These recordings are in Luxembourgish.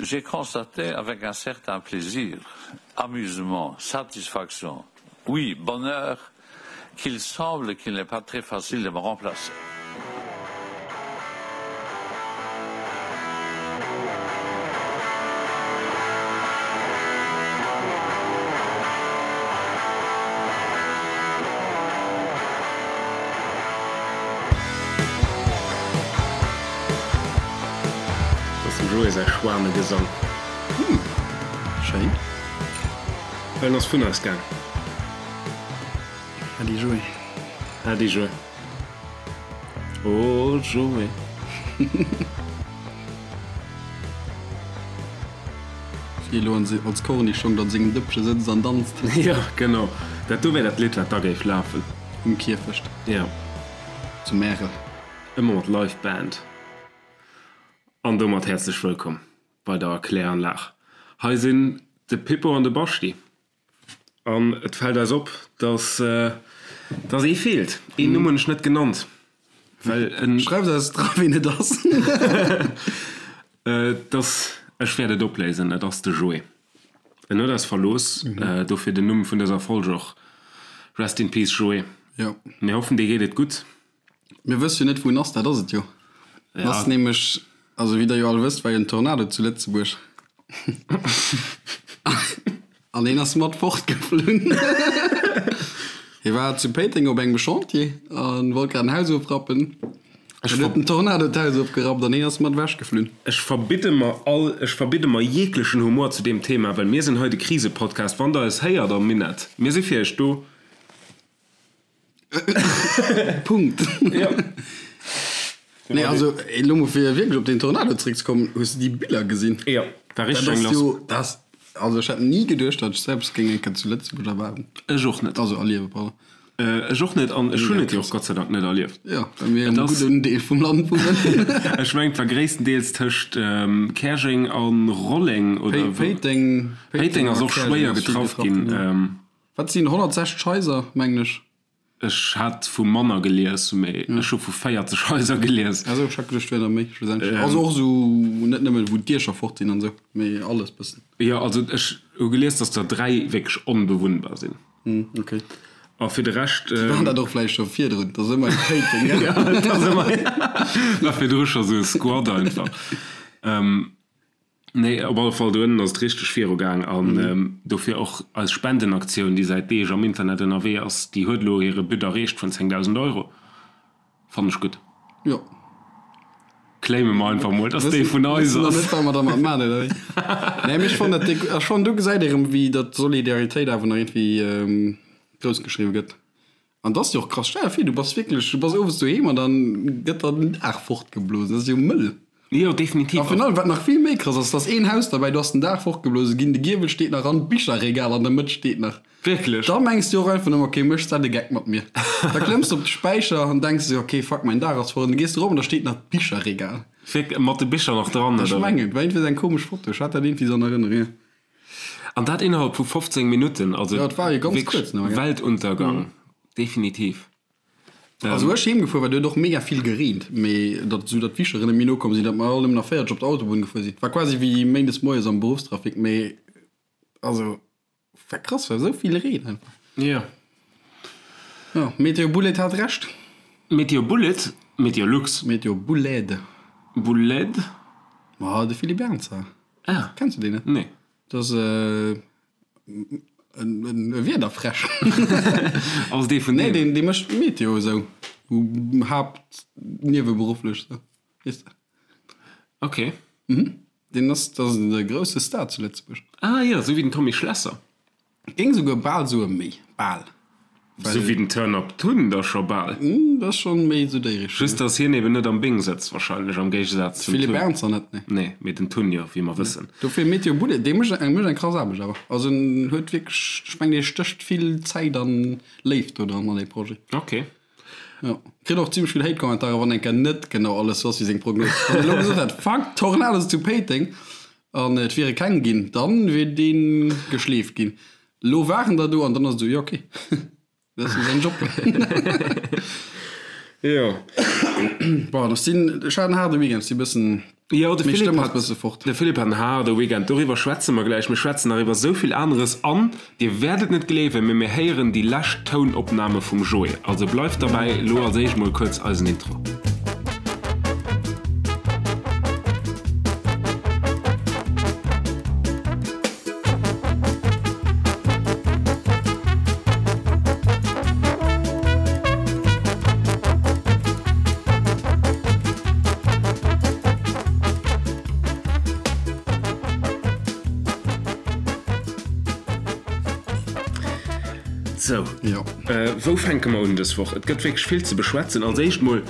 J'ai constaté avec un certain plaisir, amusement, satisfaction, oui, bonheur, qu'il semble qu'il n'est pas très facile de me remplacer. Ass dem Joé säi Schwanegesang. Hm, schéin. En ass vun eis gaang. Äddi Joé. Äddi Joé. Oh Joé. Wéi elo als Kornischong an sengem Dëppche sëtzt an danzt. Jo, genau. Dat do wär dat Lidd, wat da géif lafen. Um Kierfecht. Jo. Zu Märel. Ëmmer mat Live Band. An domat häerzlech wëllkomm bei der Kläranlag. Hei sinn de Pippo an de Baschti. An et fält eis op, dass dass ee feelt. Een Numm hunn ech net genannt, well en. Schreift eis dra ween et ass. Et ass, ech wäert et opléisen, et ass de Joé. En huet eis verlooss, dofir den Numm vun dëser Folg och. Rest in peace Joé. Jo. Mir hoffen dir geet et gutt. Mir wësse jo net wou en ass, dat ass et jo. En ass nämlech, also wéi der jo all wësst, war jo en Tornado zu Lëtzebuerg an hien ass mat fortgeflunn. Hie war zu Péiteng op engem Chantier a wollt grad en Haus ofrappen. Dann huet den Tornado d'Haus ofgerappt an hien ass mat ewech geflunn. Ech verbidde mer all, ech verbidde mer jeglechen Humor zu deem Thema, well mir sinn hei de Krisepodcast. Wann der eis héiert am Minett, mir si fir iech do. Punkt. Ja. Nee, also elo mol fir wierklech op den Tornado zréckzekommen, hues de déi Biller gesinn? Jo, war richteg eng Dat ass lass. jo, dat ass, also ech hätt ni geduecht, datt ech selbst géing eng Kéier zu Lëtzebuerg erwaarden. Ech och net. Also erliewen, pardon. Ech och net an ech hunn et jo och Gott sei Dank net erlieft. Jo, well mir Et am ass, gudden Deel vum Land wunnen. ech mengen et war gréisstendeels tëscht Käerjeng an Rolleng oder wou. Péiteng, Péiteng Péiteng ass a och Käerjeng schwéier ass vill getraff getraff ginn. ginn, jo. Wat sinn 160 Haiser, mengen ech. Ech hat vu manner gelies, mee ech hu vu 40 Haiser gelies. Ah sou, ech hat geduecht, et wier der méi schlussendlech. Also och esou net nëmmen wou d'Diecher fort sinn an esou, mee alles bëssen. Jo, also ech hu gelies, datt der 3 wierklech onbewunnbar sinn. Hm, ok. A fir de Rescht. Déi waren dat och vläicht scho virdrun, et ass ëmmer eng Péiteng, gell? Jo, et ass ëmmer, war virdru scho sou e Squad einfach. Nee, op alle Fall do ënnen ass et richteg viru gaang an dofir och eis Spendenaktioun, déi säit Deeg am Internet ënnerwee ass, déi huet elo hire But erreecht vun 10.000 Euro. Fannen ech gutt. Jo. Claime mer einfach mol, dass déi vun eis Wëssen ass. nach net, wat mer dermat maachen, oder wéi? Nee, mee ech fannen dat déck, ech fannen do gesäit ee rëm, wéi datt Solidaritéit awer nach iergendwéi grouss geschriwwe gëtt. An dat ass jo och krass. Stell der vir, du bass wierklech, du bass owes doheem an dann gëtt der den Daach fortgeblosen. Dat ass jo mëll. Jo, definitiv. A virun allem, wat nach vill méi krass ass, et ass een Haus derbäi, do ass den Daach fortgeblose ginn, de Giewel steet nach an d'Bicherregal an der Mëtt steet nach. Wierklech? Da mengs du och einfach nëmmen, ok, méchs dat e Geck mat mir? Da klëmms du op de Späicher an denks esou, ok, fuck, mäin Daach ass fort. An da gees du erop an da steet nach d'Bicherregal. Wierklech? Mat de Bicher nach dran, Ech oder wéi? mengen, et war iergendwéi esou eng komesch Foto, ech hat dat iergendwéi esou an Erënnerung, jo. An dat innerhalb vu 15 Minutten, also Ja, et war jo ganz wierklech kuerz nëmme, gell? Weltuntergang, definitiv. Also wou ech heem gefuer war, do huet och mega vill gereent, mee datt esou datt d'Wischeren net méi nokomm sinn, datt mer all nëmmen nach 40 op der Autobunn gefuer sinn. War quasi wéi méindes moies am Beruffstrafic, mee also war krass, war esou vill Reen einfach. Jo. Jo, Meteo Bullet hat Recht. Meteo Bullet? Meteo Lux. Meteo Bouled. Bouled? Ma de Philippe Ernzer. Ah. Kenns du deen net? Nee. Dat ass e Wiederfräsch. Ass dee vun Nee, deem? deen, dee mécht Meteo esou. Haapt nieweberufflech esou, weess de. Ok. Mhm. Deen ass, dat ass de grousse Star zu Lëtzebuerg. Ah jo, esou wéi den Tommy Schlesser. Géing souguer bal soe méi. Bal. Sou wéi den Turn Up Tun da scho bal. Dat ass schonn méi esou déi Richtung. Just dass hien eben net am Bing sëtzt wahrscheinlech, am Géigesaz zum Tun. Philippe Ernzer net, nee. Nee, mee den Tun jo, wéi mer wëssen. Dofir Meteo Bullet, dee mécht eng mécht eng krass Aarbecht awer. Also en huet wierklech, ech mengen dee stécht vill Zäit an Léift do dran an dee Projet. Ok. Jo. Kritt och zimmlech vill Hate-Kommentare wann eng Kéier net genau alles sou ass wéi seng Prognos. Wann en elo gesot hätt, Fuck, Tornados zu Péiteng an et wiere keng ginn, dann wier dee geschleeft ginn. Lo waren der do an dann ass et esou, jo ok, dat ass jo säin Job. Jo. Bon, ech sinn, ech hat en haarde Weekend, si bëssen. Jo, de Philippe hat, de Philippe hat en haarde Weekend. Doriwwer schwätze mer gläich. Mir schwätzen nach iwwer esou vill aneres an Dir wäert et net gleewen, mee mir héieren déi lescht Tounopname vum Joé. Also bleift derbäi. Elo als éischt mol kuerz eisen Intro. Sou, wou fänke mer un dës Woch? Et gëtt wierklech vill ze beschwätzen. Als éischt mol,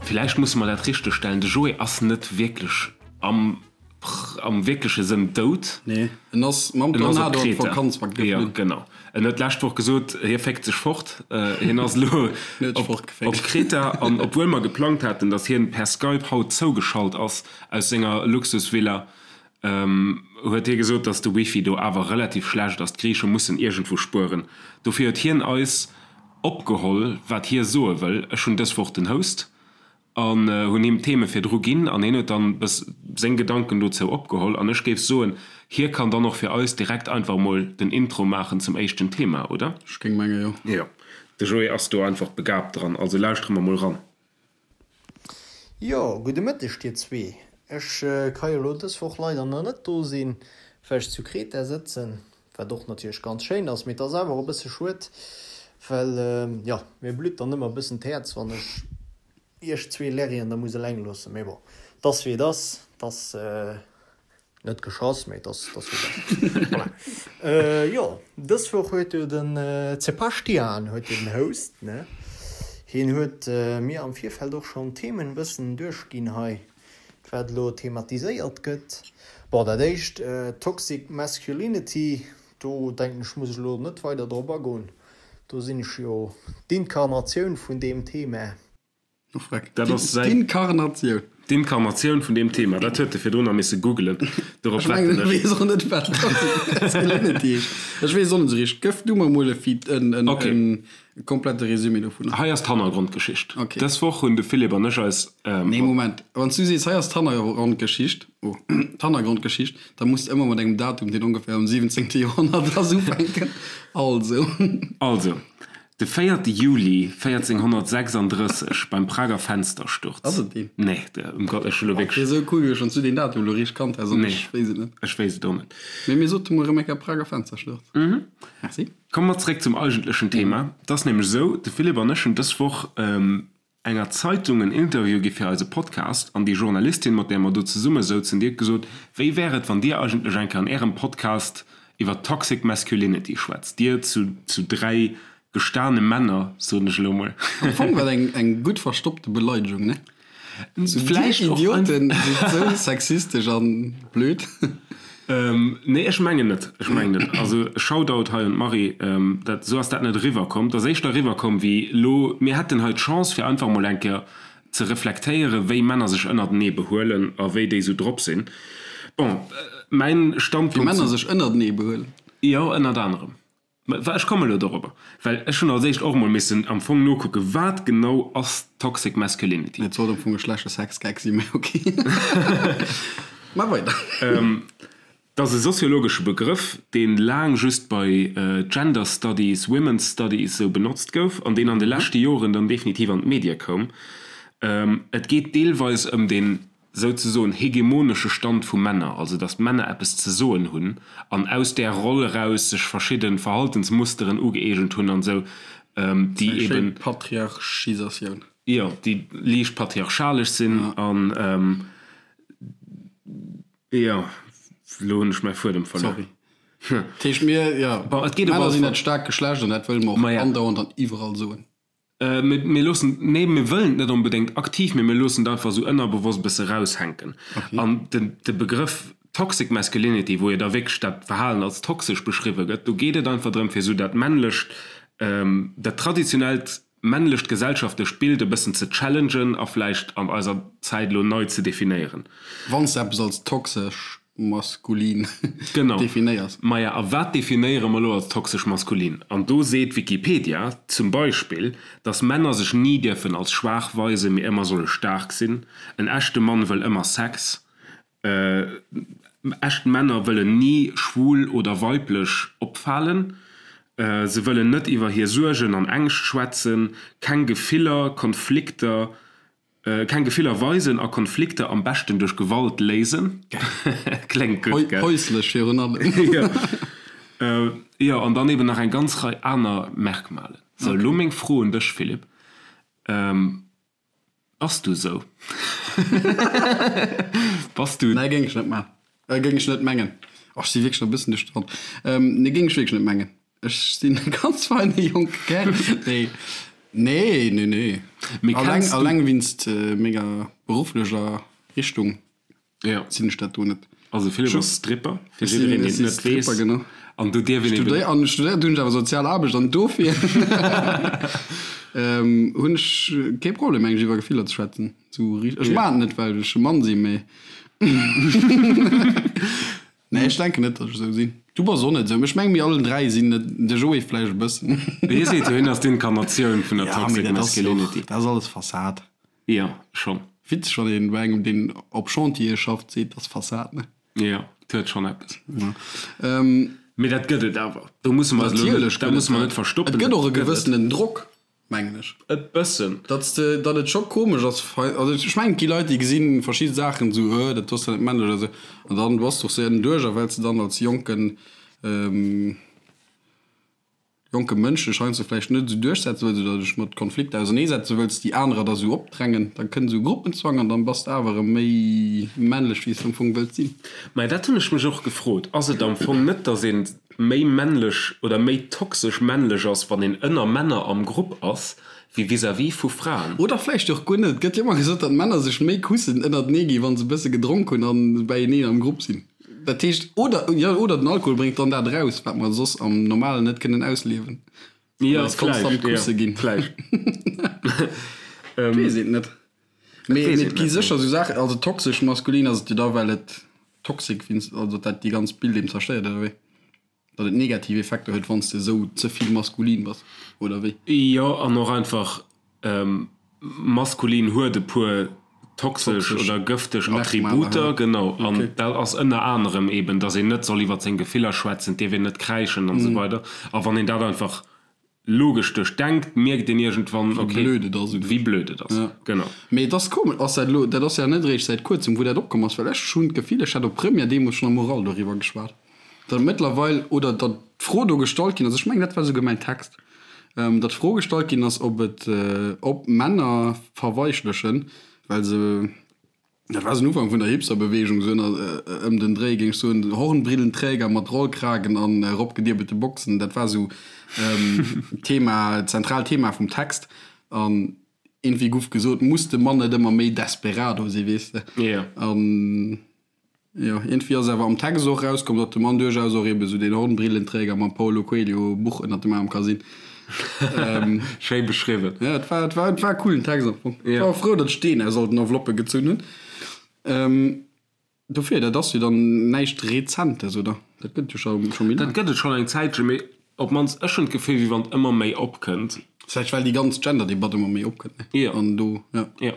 villäicht musse mer dat richtegstellen, de Joé ass net wierklech am am wierkleche Sënn dout. Nee, en ass mam Tornado an d'Vakanz geflunn. Jo, genau. En huet d'lescht Woch gesot, hie féckt sech fort. Hien ass elo op Kreta. An obwuel mer geplangt haten, datt hien per Skype haut zougeschalt ass aus senger Luxusvilla, huet hie gesot, datt de Wifi do awer relativ schlecht ass. D'Griiche mussen iergendwou spueren. Dofir huet hien eis opgeholl, wat hie soe wëll. Ech hunn dës Woch den Host. An hunn him d'Theme virdru ginn an hien huet dann bëss seng Gedanken dozou opgeholl. An ech géif soen, hie kann dann och fir eis direkt einfach mol den Intro maachen zum éischten Thema, oder? Ech géing menge jo. Jo, de Joé ass do einfach begabt dran, also lauschtere mer mol ran. Jo, gudde Mëtteg dir zwee. Ech ka jo lo dës Woch leider nach net do sinn, well ech zu Kreta sëtzen, wat och natierlech ganz schéin ass, mee et ass awer och e bësse schued, well jo, mir blutt dann ëmmer e bëssen d'Häerz, wann ech iech zwee Lerrien da muss eleng loossen. Mee bon, 't ass wéi et ass, 't ass net geschoss, mee 't ass, 't ass wéi et ass. Voilà. Jo, dës Woch huet jo den Zepaschtian huet jo den Host, ne? Hien huet mir am Virfeld och schonn d'Themen e bëssen duerchginn hei, wat elo thematiséiert gëtt. Bon, dat éischt, Toxic Masculinity, do denken ech, muss ech elo net weider drop agoen, do sinn ech jo d'Inkarnatioun vun deem Thema. Oh freck, Dat ass säin. D'Inkarnatioun. D'Inkarnatioun vun deem Thema, dat huet e virdrun nach misse googelen. Dorop Ech mengen, wetten ech ech. weess och net, wat Toxic Masculinity heescht. Ech weess och net esou richteg. Gëff du mer emol e Feed, en, en, Okay. en komplette Résumé dovunner. Hei ass d'Hannergrondgeschicht. Okay. Dës Woch hunn de Philippe an ech eis. Nee, Moment. Wann s du sees, hei ass d'Hannergrondgeschicht, oh, d'Hannergrondgeschicht, da muss de ëmmer mat engem Datum, deen ongeféier am 17. Joerhonnert ass, ufänken. Also. Also, de véierte Juli 1436 beim Prager Fenstersturz. Ass et deen? Nee, de, ëm Gott, ech hu lo Wier wierklech. esou cool gewiescht, wann s du deen Datum elo richteg kannt häss an Nee, ech wéisst et net. ech wéisst et och net. Mee mir sote mol erëm eng Kéier Prager Fenstersturz. Merci. Komme mer zeréck zum eigentlechen Thema. Et ass nämlech esou, de Philippe an ech hunn dës Woch enger Zeitung en Interview gi fir eise Podcast an déi Journalistin, mat där mer do zesumme souzen, déi huet gesot, Wéi wär et, wann Dir eigentlech eng Kéier an Ärem Podcast iwwer Toxic Masculinity schwätzt, Dir zu zu 3 gestane Männer, soen ech elo mol. Am Fong war et eng gutt verstoppte Beleidegung, ne? Vläicht Dir och Idioten sidd sou sexistesch an blöd. Nee, ech mengen net. Ech mengen net. Also Shoutout hei un d'Marie, dat, sou ass dat net eriwwer komm. Et ass éischter eriwwer komm wéi elo, mir hätten hei d'Chance fir einfach emol eng Kéier ze reflektéieren, wéi Männer sech ënnertenee behuelen a wéi déi sou drop sinn. Bon, mäin Wéi Standpunkt Männer zu. sech ënnertenee behuelen. Jo, ënnert anerem. Mä ech komme elo dorobber, well ech hunn als éischt och emol missen am Fong nokucken, wat genau ass Toxic Masculinity? Et sollt am Fong e schlechte Sexgag sinn, mä ok. Maach weider. Et ass e soziologesche Begrëff, dee laang just bei Gender Studies, Women's Studies esou benotzt gouf an deen an de leschte Joren dann definitiv an d'Medie koum. Et geet deelweis ëm den souzesoen hegemonesche Stand vu Männer, also datt d'Männer eppes ze soen hunn an aus där Roll eraus sech verschidde Verhaltensmusteren ugëeegent hunn an esou, déi Eng schéin eben. Patriarchisatioun. Jo, déi liicht patriarchalesch sinn an, jo, elo hunn ech mäi Fuedem verluer. Sorry. Dat heescht, mir, jo, Bon, et geet op Männer alle sinn Fall. dat staarkt Geschlecht an dat wëlle mer och Maja. andauernd an iwwerall soen. Mir loossen, nee, mir wëllen et net onbedéngt aktiv, mee mir loossen et einfach esou ënnerbewosst e bësse raushänken. An de Begrëff Toxic Masculinity, wou jo da wierklech dat Verhalen als toxesch beschriwwe gëtt, do geet et einfach drëm, fir esou dat männlecht, dat traditionellt männlecht gesellschaftlecht Bild e bëssen ze challengen a vläicht an eiser Zäit elo nei ze definéieren. Wann s de eppes als toxesch maskulin Genau. definéiers. Maja, a wat definéiere mer elo als toxesch maskulin? An do seet Wikipedia zum Beispill, dass Männer sech ni dierfen als schwaach weisen, mee ëmmer solle staark sinn. En echte Mann wëll ëmmer Sex. Echt Männer wëllen ni schwul oder weiblech opfalen. Se wëllen net iwwer hir Suergen an Ängscht schwätzen, keng Gefiller, Konflikter, keng Gefiller weisen a Konflikter am beschten duerch Gewalt léisen. Kléngt gutt, gell? Häuslech virun allem. Jo. Jo, an dann eben nach eng ganz Rei aner Merkmalen. Sou, elo meng Fro un dech, Philippe. Bass du sou? Bass du. Nee, géing ech net maachen. Géing ech net mengen. Oh, ech si wierklech nach e bëssen duerch de Wand. Nee, géing ech wierklech net mengen. Ech sinn e ganz feine jonke Kär. Nee, nee, nee, nee. Mee Alleng, kenns du. alleng winst menger berufflecher Richtung. Ja. Sinn ech dat do net. Also Philipp ass Stripper, fir jiddereen deen et net weess. Genau. An do dierf een eben. Studéiert, an studéiert hunn ech awer sozial Aarbecht an dofir hunn ech kee Problem meng ech iwwer Gefiller ze schwätzen. Sou richt, ech maachen et net well ech e Mann sinn, mee nee ech denken net datt ech esou sinn. Du bass och net esou, mee ech menge mir allen 3 sinn net, de Joé vläicht e bëssen. Hie seet jo hien ass d'Inkarnatioun vun der Ja mee Toxic dat ass jo och, Masculinity. dat ass alles Fassad. Jo, schonn. Witzeg, wann een bei engem deen op Chantiere schafft seet, ass Fassad, ne? Jo, et huet schonn eppes. Ja. Mee dat gëtt et awer. Do musse mer eis elo net, dat musse mer net verstoppen. Et gëtt och e gewëssenen Drock, mengen ech. E bëssen. Datt s de, datt et scho komesch ass, also ech mengen et gi Leit déi gesi verschidde Saachen esou, äh, dat ass jo net männlech oder esou, an dann bass de och sou ënnerduerch a well s de dann als jonken, Jonke Mënsch dech heiansdo vläicht net esou duerchsetze wëlls oder dech mat Konflikter auserneesetze wëlls, déi anerer der esou opdrängen, da kënnt esou Gruppenzwang an dann bass de awer erëm méi männlech wéi s de am Fong wëlls sinn. Mä dat hunn ech mech och gefrot. Ass et am Fong net, datt ee méi männlech oder méi toxesch männlech ass, wann een ënner Männer am Grupp ass, wéi vis-à-vis vu Fraen? Oder vläicht och guer net. Et gëtt jo ëmmer gesot, datt Männer sech méi Kussen ënnertenee ginn, wa se e bësse gedronk hunn a beieneen am Grupp sinn. Dat heescht, oder, jo, oder den Alkohol bréngt dann dat eraus, wat mer soss am Normalen net kënnen ausliewen. Jo, Well eis konstant vläicht, jo, Kusse ginn. vläicht. Et weess een et net. Mee, weess mee een et gi net, sécher esou Saachen, also toxesch maskulin ass et jo da, well et toxic, also dat déi ganz Bild eben zerstéiert, oder wéi? Datt et negativ Effekter huet, wann s de esou ze vill maskulin bass, oder wéi? Jo, an och einfach maskulin huet e puer toxesch oder gëfteg Attributer, genau. An dat ass ënner anerem eben, datt een net soll iwwer seng Gefiller schwätzen, et dierf een net kräischen an esou weider. A wann een dat einfach Logesch duerchdenkt, mierkt een iergendwann, ok, Wéi blöd et ass. Wéi blöd et ass, genau. Mee et ass komesch, ass dat elo, dat ass ja net eréischt säit kuerzem, wou dat opkomm ass, well ech hunn d'Gefill, ech hätt op Première deemools schonn am Oral doriwwer geschwat, datt et mëttlerweil, oder datt d'Fro do gestallt ginn ass, ech mengen, dat war esouguer mäin Text, datt d'Fro gestallt ginn ass, ob et, ob Männer verweichlechen, well se, Dat war den Ufank vun der Hipsterbewegung, sou ëm den Dréi, géing ech soen. Hornbrillenträger mat Rollkragen an eropgedierbelte Boxen, dat war sou d'Thema, d'zentraalt Thema vum Text. An iergendwéi guff gesot, muss de Mann net ëmmer méi Desperado sinn, weess de? An jo, iergendwéi ass awer am Text och erauskomm, datt de Mann duerchaus och ebe sou deen Hornbrillenträger mam Paulo Coelho Buch ënnert dem Aarm ka sinn. Schéi beschriwwen. Ja, et war, et war, et war e coolen Text am Fong. Ech war och frou, datt ech deen aus all den Enveloppe gezunn hunn. Ähm, dofir, dat ass jo dann näischt Rezentes, oder? Dat gëtt et jo scho, scho méi Dat laang. gëtt et schonn eng Zäitchen, mee op d'mannst ech hunn d'Gefill, wéi wann et ëmmer méi opkënnt. Vläicht well déi ganz Gender-Debatt ëmmer méi opkënnt, ne? Jo. An do, ja. Jo.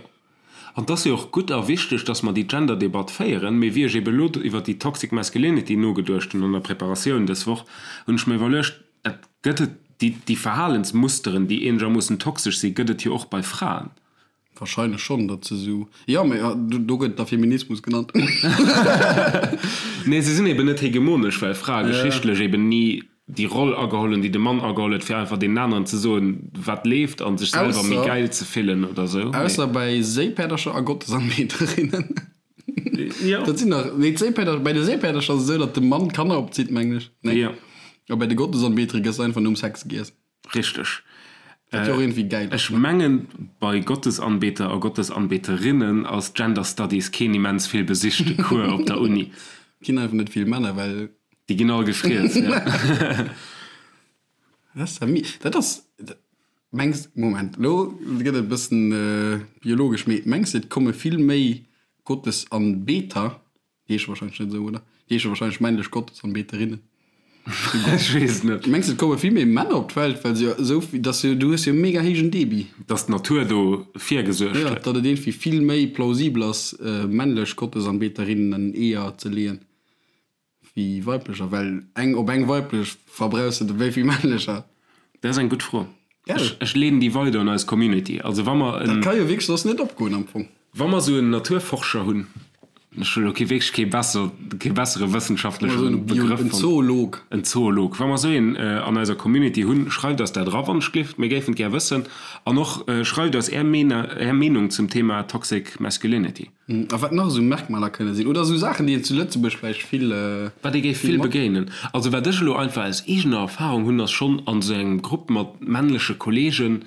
An et ass jo och gutt a wichteg, dass mer déi Gender-Debatt féieren. Mee wéi ech ebe elo iwwert déi Toxic Masculinity nogeduecht hunn an der Preparatioun dës Woch, hunn ech mer iwwerluecht, Et gëtt et, déi, déi Verhalensmusteren, déi eenegermoossen toxesch sinn, gëtt et jo och bei Fraen. Wahrscheinlech schonn, datt se esou, jo, mee do gëtt et da Feminismus genannt. Nee, se sinn eben net hegemonesch, well Frae geschichtlech eben ni déi Roll ageholl hunn, déi de Mann ageholl huet, fir einfach deenen aneren ze soen, wat leeft a sech selwer méi gäil ze fillen oder esou. Ausser bei Séipäerdercher a Gottesanbeterinnen. Jo. Dat sinn nach, nee, d'Séipäerder, bei de Séipäerdercher ass et esou, datt de Mann d'Kanner opzitt, mengen ech. Nee. Jo. A bei de Gottesanbetere gëss einfach nom Sex giess. Richteg. Wat jo och iergendwéi gäil ass, Ech ne? mengen, bei Gottesanbeter a Gottesanbeterinnen ass Gender Studies keen immens vill besichte Cours op der Uni. Ginn einfach net vill Männer, well. Déi ginn all gefriess, ja. Dat ass ja mi, dat ass, mengs, Moment, elo gëtt et e bëssen biologesch, mee mengs de et komme vill méi Gottesanbeter, déi heesche wahrscheinlech net esou, oder? Déi heesche wahrscheinlech männlech Gottesanbeterinnen. Ech weess et net. Mengs de et komme vill méi Männer op d'Welt, well se jo esou, dass jo, du hues jo e mega héijen Debit. Dass d'Natur do virgesuergt huet. Jo, datt et iergendwéi vill méi plausibel ass, männlech Gottesanbeterinnen Eeër ze leeën, wéi weiblecher, well eng op eng weiblech verbrauchs de wéi vill männlecher? Dat ass eng gutt Fro. Gell? Ech leeden déi weider un eis Community. Also wa mer en. Dat ka jo wierklech soss net opgoen am Fong. Wa mer esou en Naturforscher hunn, ech hunn elo kee wierklech kee besser, kee bessere wëssenschaftleche Begrëff fonnt. En Zoolog. En Zoolog. Wa mer esou een an eiser Community hunn, schreift eis dat era wann ech gleeft, mir géifen et gär wëssen. An och schreift eis Är Är Meenung zum Thema Toxic Masculinity. A wat nach esou Merkmaler kënne sinn, oder esou Saachen, déi een zu Lëtzebuerg vläicht vill. Wat ee géif vill begéinen. Also wat ech elo einfach aus eegener Erfahrung hunn, ass schonn an esou engem Grupp mat männleche Kollegen,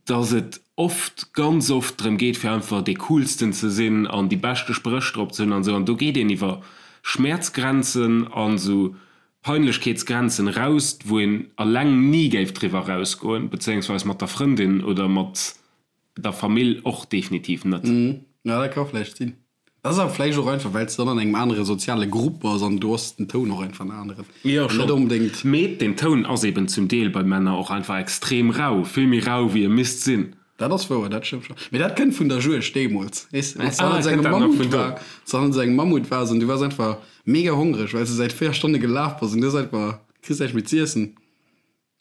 dass et oft, ganz oft drëm geet fir einfach dee coolsten ze sinn an déi beschte Spréch drop ze hunn an esou. An do geet een iwwer Schmäerzgrenzen an esou Peinlechkeetsgrenzen eraus, wou een alleng ni géif driwwer erausgoen, bezéiungsweis mat der Frëndin oder mat Der Famill och definitiv net. Jo, dat ka vläicht sinn. Dat ass awer vläicht och einfach, well s de dann an engem anere soziale Grupp bass an do ass den Toun och einfach en aneren. Jo, schonn. Net onbedéngt. Mee den Toun ass eben zum Deel bei Männer och einfach extrem rau, vill méi rau wéi e misst sinn. Dat ass wouer, dat stëmmt schonn. Mee dat kënnt vun der Juegd deemools, weess de, wann s de hannert engem Mammut war, wann s de hannert engem Mammut waars an du waars einfach mega hongreg, well s de säit 4 Stonne gelaf bass an du hues einfach, kriss näischt méi z'iessen,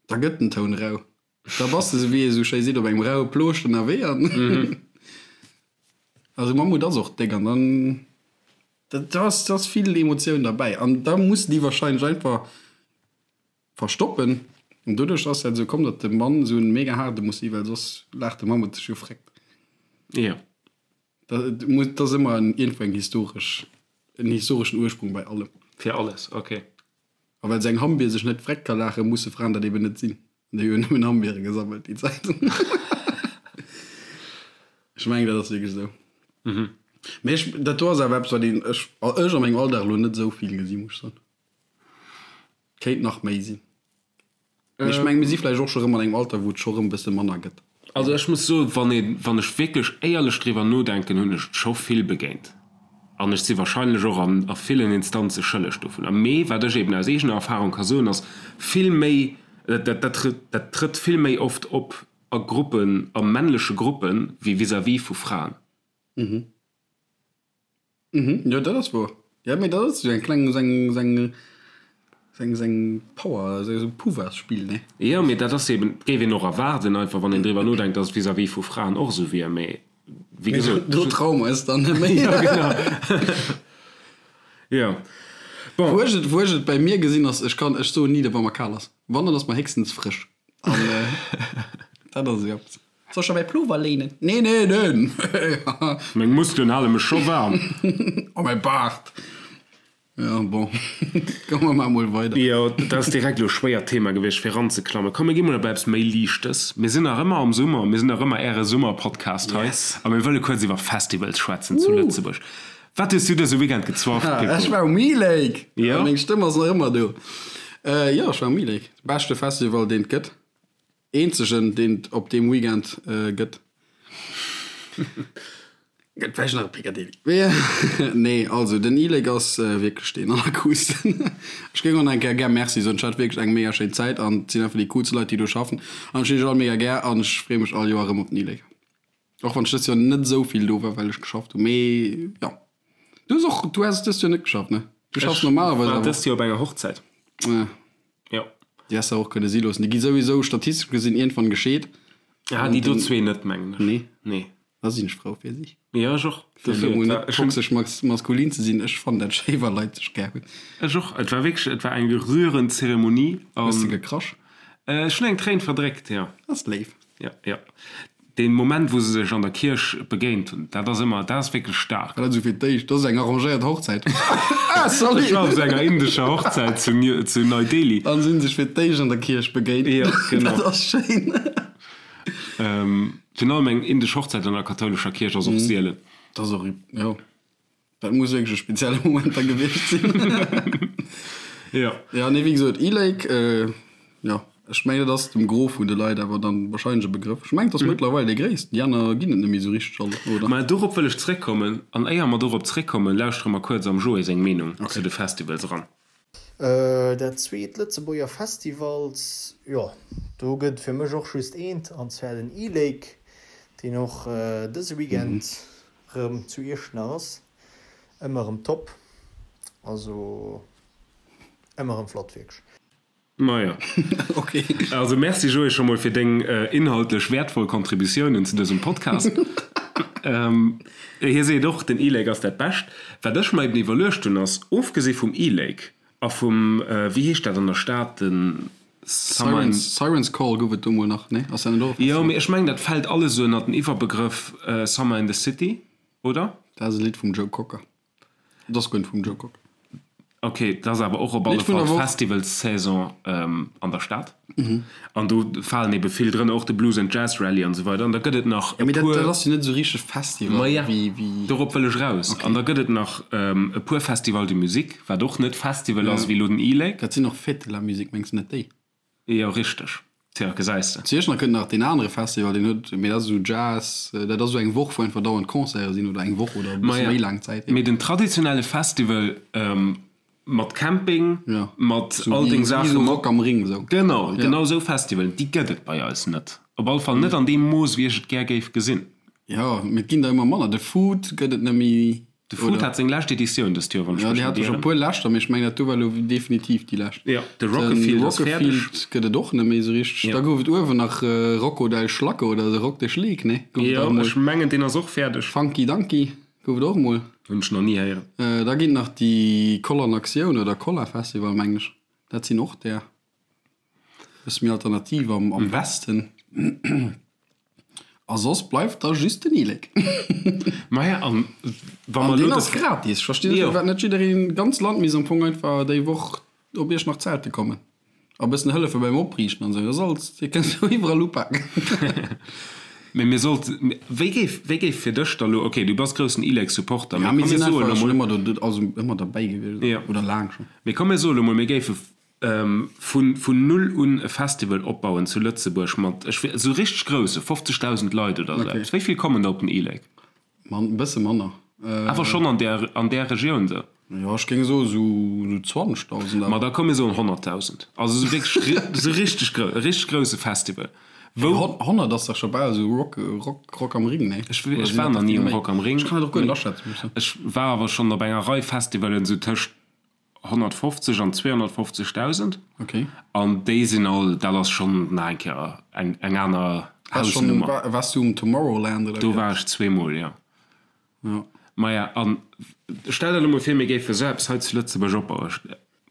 da gëtt den Toun rau. Da bass de, sou wéi ee sou schéi seet, op engem raue Plooscht ënnerwee an also Mammut ass och déck an dann da ass da ass vill Emotioun derbäi an da muss déi wahrscheinlech einfach verstoppen an doduerch ass dat esou komm, datt de Mann esou en mega haarde muss si well soss laacht de Mammut sech jo fréckt. Jo. Dat muss, dat ass ëmmer en iergendwou eng historesch, en historeschen Ursprung bei allem. Fir alles, ok. A well se eng Hammbier sech net vreckt ka laachen, musse Fraen dat eben net sinn. An déi hunn nëmmen Hammbiere gesammelt déi Zäit. Ech mengen, dat ass wierklech esou. Mee ech, dat do ass awer eppes, wat een, ech, ech a mengem Alldag elo net esou vill gesi muss ech soen. Kéint nach méi sinn. Mee ech mengen, mir si vläicht och scho rëm an engem Alter, wou et scho rëm e bësse manner gëtt. Also ech muss soen, wann ee, wann ech wierklech éierlech driwwer nodenken, hunn ech et scho vill begéint. An ech si wahrscheinlech och an a villen Instanze schëlleg dovunner. Mee wat ech eben aus eegener Erfahrung ka soen, ass vill méi, dat dat dat trëtt vill méi oft op a Gruppen, a männleche Gruppen, wéi vis-à-vis vu Fraen. Mhm, jo dat ass wouer. Jo mee dat ass esou eng kleng, esou eng, esou eng, esou eng, esou eng Power, esou e Pouvoirsspill, ne? Jo, mee dat ass eben, géif een och erwaarden einfach, wann een driwwer nodenkt, datt et vis-à-vis vu Fraen och esou wier, mee wéi gesot. Do traue mer eis dann net méi. Jo, genau. Jo, bon. Wou ech et, wou ech et bei mir gesinn ass, ech kann, ech soen ni, wa mer kal ass. Wann, dann ass mer héchstens frësch. An dat ass esou eppes. Soll ech der mäi Plover léinen? Nee, nee, nee! Meng Muskelen hale mech scho waarm. A mäi Baart! Jo, bon, komme mer emol weider. Jo, dat ass direkt elo e schwéiert Thema gewiescht, fir eranzeklammen. Komm, mir gi mol op eppes méi Liichtes. Mir sinn nach ëmmer am Summer, mir sinn nach ëmmer Äre Summerpodcast hei. A mir wëlle kuerz iwwer Festivals schwätzen zu Lëtzebuerg. Wat hues du dëse Weekend gezwafft, Pippo? Ech war um E-Lake! Jo? Meng Stëmm ass nach ëmmer do. Jo, ech war um E-Lake. Beschte Festival, deen et gëtt. Eenzegen deen et op deem Weekend gëtt. Gëtt vläicht nach e Picadilly. Nee, also den E-Lake ass wierklech deen allercoolsten. Ech géing och nach eng Kéier gär Merci soen. Ech hat wierklech eng mega schéin Zäit an et sinn einfach déi coolste Leit déi do schaffen an ech hunn iech all mega gär an ech freeë mech all Joer erëm op den E-Lake. Och wann ech dëst Joer net esou vill do war, well ech geschafft hunn. Mee jo. Du hues och, du has dëst Joer net geschafft, ne? Du schaffs normalerweis awer. Ech war dëst Joer op enger Hochzäit. Ah. Jo. Déi häss de och kënne si loossen. Déi gi souwisou statistesch gesinn iergendwann gescheet. Ah, déi do zwee net, mengen ech. Nee. Nee. Da sinn ech frou fir si. Jo, ech och. Fir elo mol net toxesch maskulin ze sinn, ech fannen dat schéi, wa Leit sech gär hunn. Ech och. Et war wierklech, et war eng rührend Zeremonie. Hues de gekrasch? Ech hunn eng Tréin verdréckt, jo. Dat ass léif. Jo, jo. Deen Moment wou se sech an der Kierch begéint hunn, dat ass ëmmer, dat ass wierklech staark. Dat ass esou fir d'éischt, dat ass eng arrangéiert Hochzäit. Ah, salut! Ech war op esou enger indescher Hochzäit zu zu Nei Delhi. An si hunn sech fir d'éischt an der Kierch begéint. Jo, genau. Dat ass schéin. Virun allem eng indesch Hochzäit an der kathoulescher Kierch ass och sielen. Dat ass och, jo. Dat muss wierklech e spezielle Moment da gewiescht sinn. Jo. Ja, nee, wéi gesot, E-Lake, jo, ech mengen, dat ass dem Gros vun de Leit awer dann wahrscheinlech e Begrëff. Ech mengen, et ass mëttlerweil dee gréissten. Déi aner ginn et net méi esou richteg all, oder? Mä dorop wëll ech zréckkommen. An éier mer dorop zréckkommen, lauschtere mer kuerz am Joé seng Meenung zu de Festivals eran. Dat zweet Lëtzebuerger Festivals, jo do gëtt et fir mech och just eent, an zwar den E-Lake, deen och dëse Weekend rëm zu Iechternach ass. Ëmmer rëm top, also ëmmer rëm flott wierklech. Majo. Ok. Also merci Joé scho mol fir deng inhaltlech wäertvoll Contributiounen zu dësem Podcast. Hie seet och, den E-Lake ass dat Bescht. Wat ech mer eben iwwerluecht hunn ass, ofgesi vum E-Lake a vum, wéi heescht dat an der Stad, den Summer in. Siren's Call gouf et do mol nach, nee? Ass dat net och e Festival? Jo, mee ech mengen dat fält alles esou ënnert den Iwwerbegrëff Summer in the City, oder? Dat ass e Lidd vum Joe Cocker. Et ass guer net vum Joe Cocker. Ok, et ass awer och op alle Fall d'Festivalssaison an der Stad. An do falen ebe vill drënner, och de Blues and Jazz Rally an esou weider. An da gëtt et nach e puer. Mee dat ass jo net esou richteg Festival. Maja, dorop wëll ech eraus. An da gëtt et nach e puer Festivals de musique, wat och net Festival ass, wéi elo den E-Lake. Dat sinn och Fêtes de la musique, mengs de net déi? Jo, richteg. Tja, gesäis de. Zu Iechternach kënnt nach deen anere Festival, deen huet, mee dat ass esou Jazz, dat ass esou eng Woch, wou einfach dauernd Concerte sinn, oder eng Woch oder e bësse méi laang Zäit. Mee den traditionelle Festival mat Camping, mat all deng Saachen. Wéi esou Rock am Ring esou. Genau, genau esou Festivalen, déi gëtt et bei eis net. Op alle Fall net an deem Mooss, wéi ech et gär géif gesinn. Jo, mee et ginn der ëmmer manner. De Food gëtt et net méi. De Food hat seng lescht Editioun dëst Joer, wann ech mech net ieren. Jo, déi hat scho puer leschter, mee ech mengen dat do war elo definitiv déi lescht. Jo, de Rockefield ass fäerdeg. De Rockefield gëtt et och net méi esou richteg. Da gouf et uewen nach Rocco del Schlacke oder de Rock de Schleek, nee? Gouf et och emol. Jo, ech mengen deen ass och fäerdeg. Funky Dunky gouf et och emol. Hunn ech nach ni héieren. Da ginn nach déi Koll an Aktioun oder Kolla Festival, mengen ech. Dat sinn och där. Bësse méi alternativ am Westen. A soss bleift da just den E-Lake. Maja, an wa mer elo. An deen ass gratis. Ech verstinn net, firwat net jiddereen, d'ganz Land misst am Fong einfach déi Woch op Iechternach zelte kommen a bëssen hëllefe beim Opriichten an esou. Dat ass alles, dir kënnt jo iwwerall upaken. Mee mir sollt, wéi géif, wéi géif fir dech da lo, okay, du bass groussen E-Lake-Supporter, mee komm mir soe lo mol. Ja, mir sinn einfach schonn ëmmer do, also ëmmer derbäi gewiescht, oder laang schonn. Mee komm mir soe lo mol, mir géife Vun null un e Festival opbauen zu Lëtzebuerg mat, ech weess, esou richteg grousse, 50.000 Leit oder esou eppes. Wéi vill kommen da op den E-Lake? E bësse manner. Awer schonn an där, an där Regioun esou? Jo, ech géing soe sou 20.000 awer. Ma da komm mir soen 100.000. Also esou wierklech esou richteg grou, e richteg grousse Festival. Wou. 100 ass dach scho bal esou Rock, Rock, Rock am Ring, nee? Ech war nach ni um Rock am Ring. Ech kann dat och guer net aschätzen, muss ech soen. Ech war awer schonn op enger Rei Festivalen esou tëscht 150 an 250.000. Okay. An déi sinn all, dat ass schonn nach eng Kéier eng, eng aner Hausnummer. Waars du um Tomorrowland oder? Do war ech zweemol, jo. Ja. Maja, an stell der elo mol vir, mir géife sou eppes hei zu Lëtzebuerg opbauen.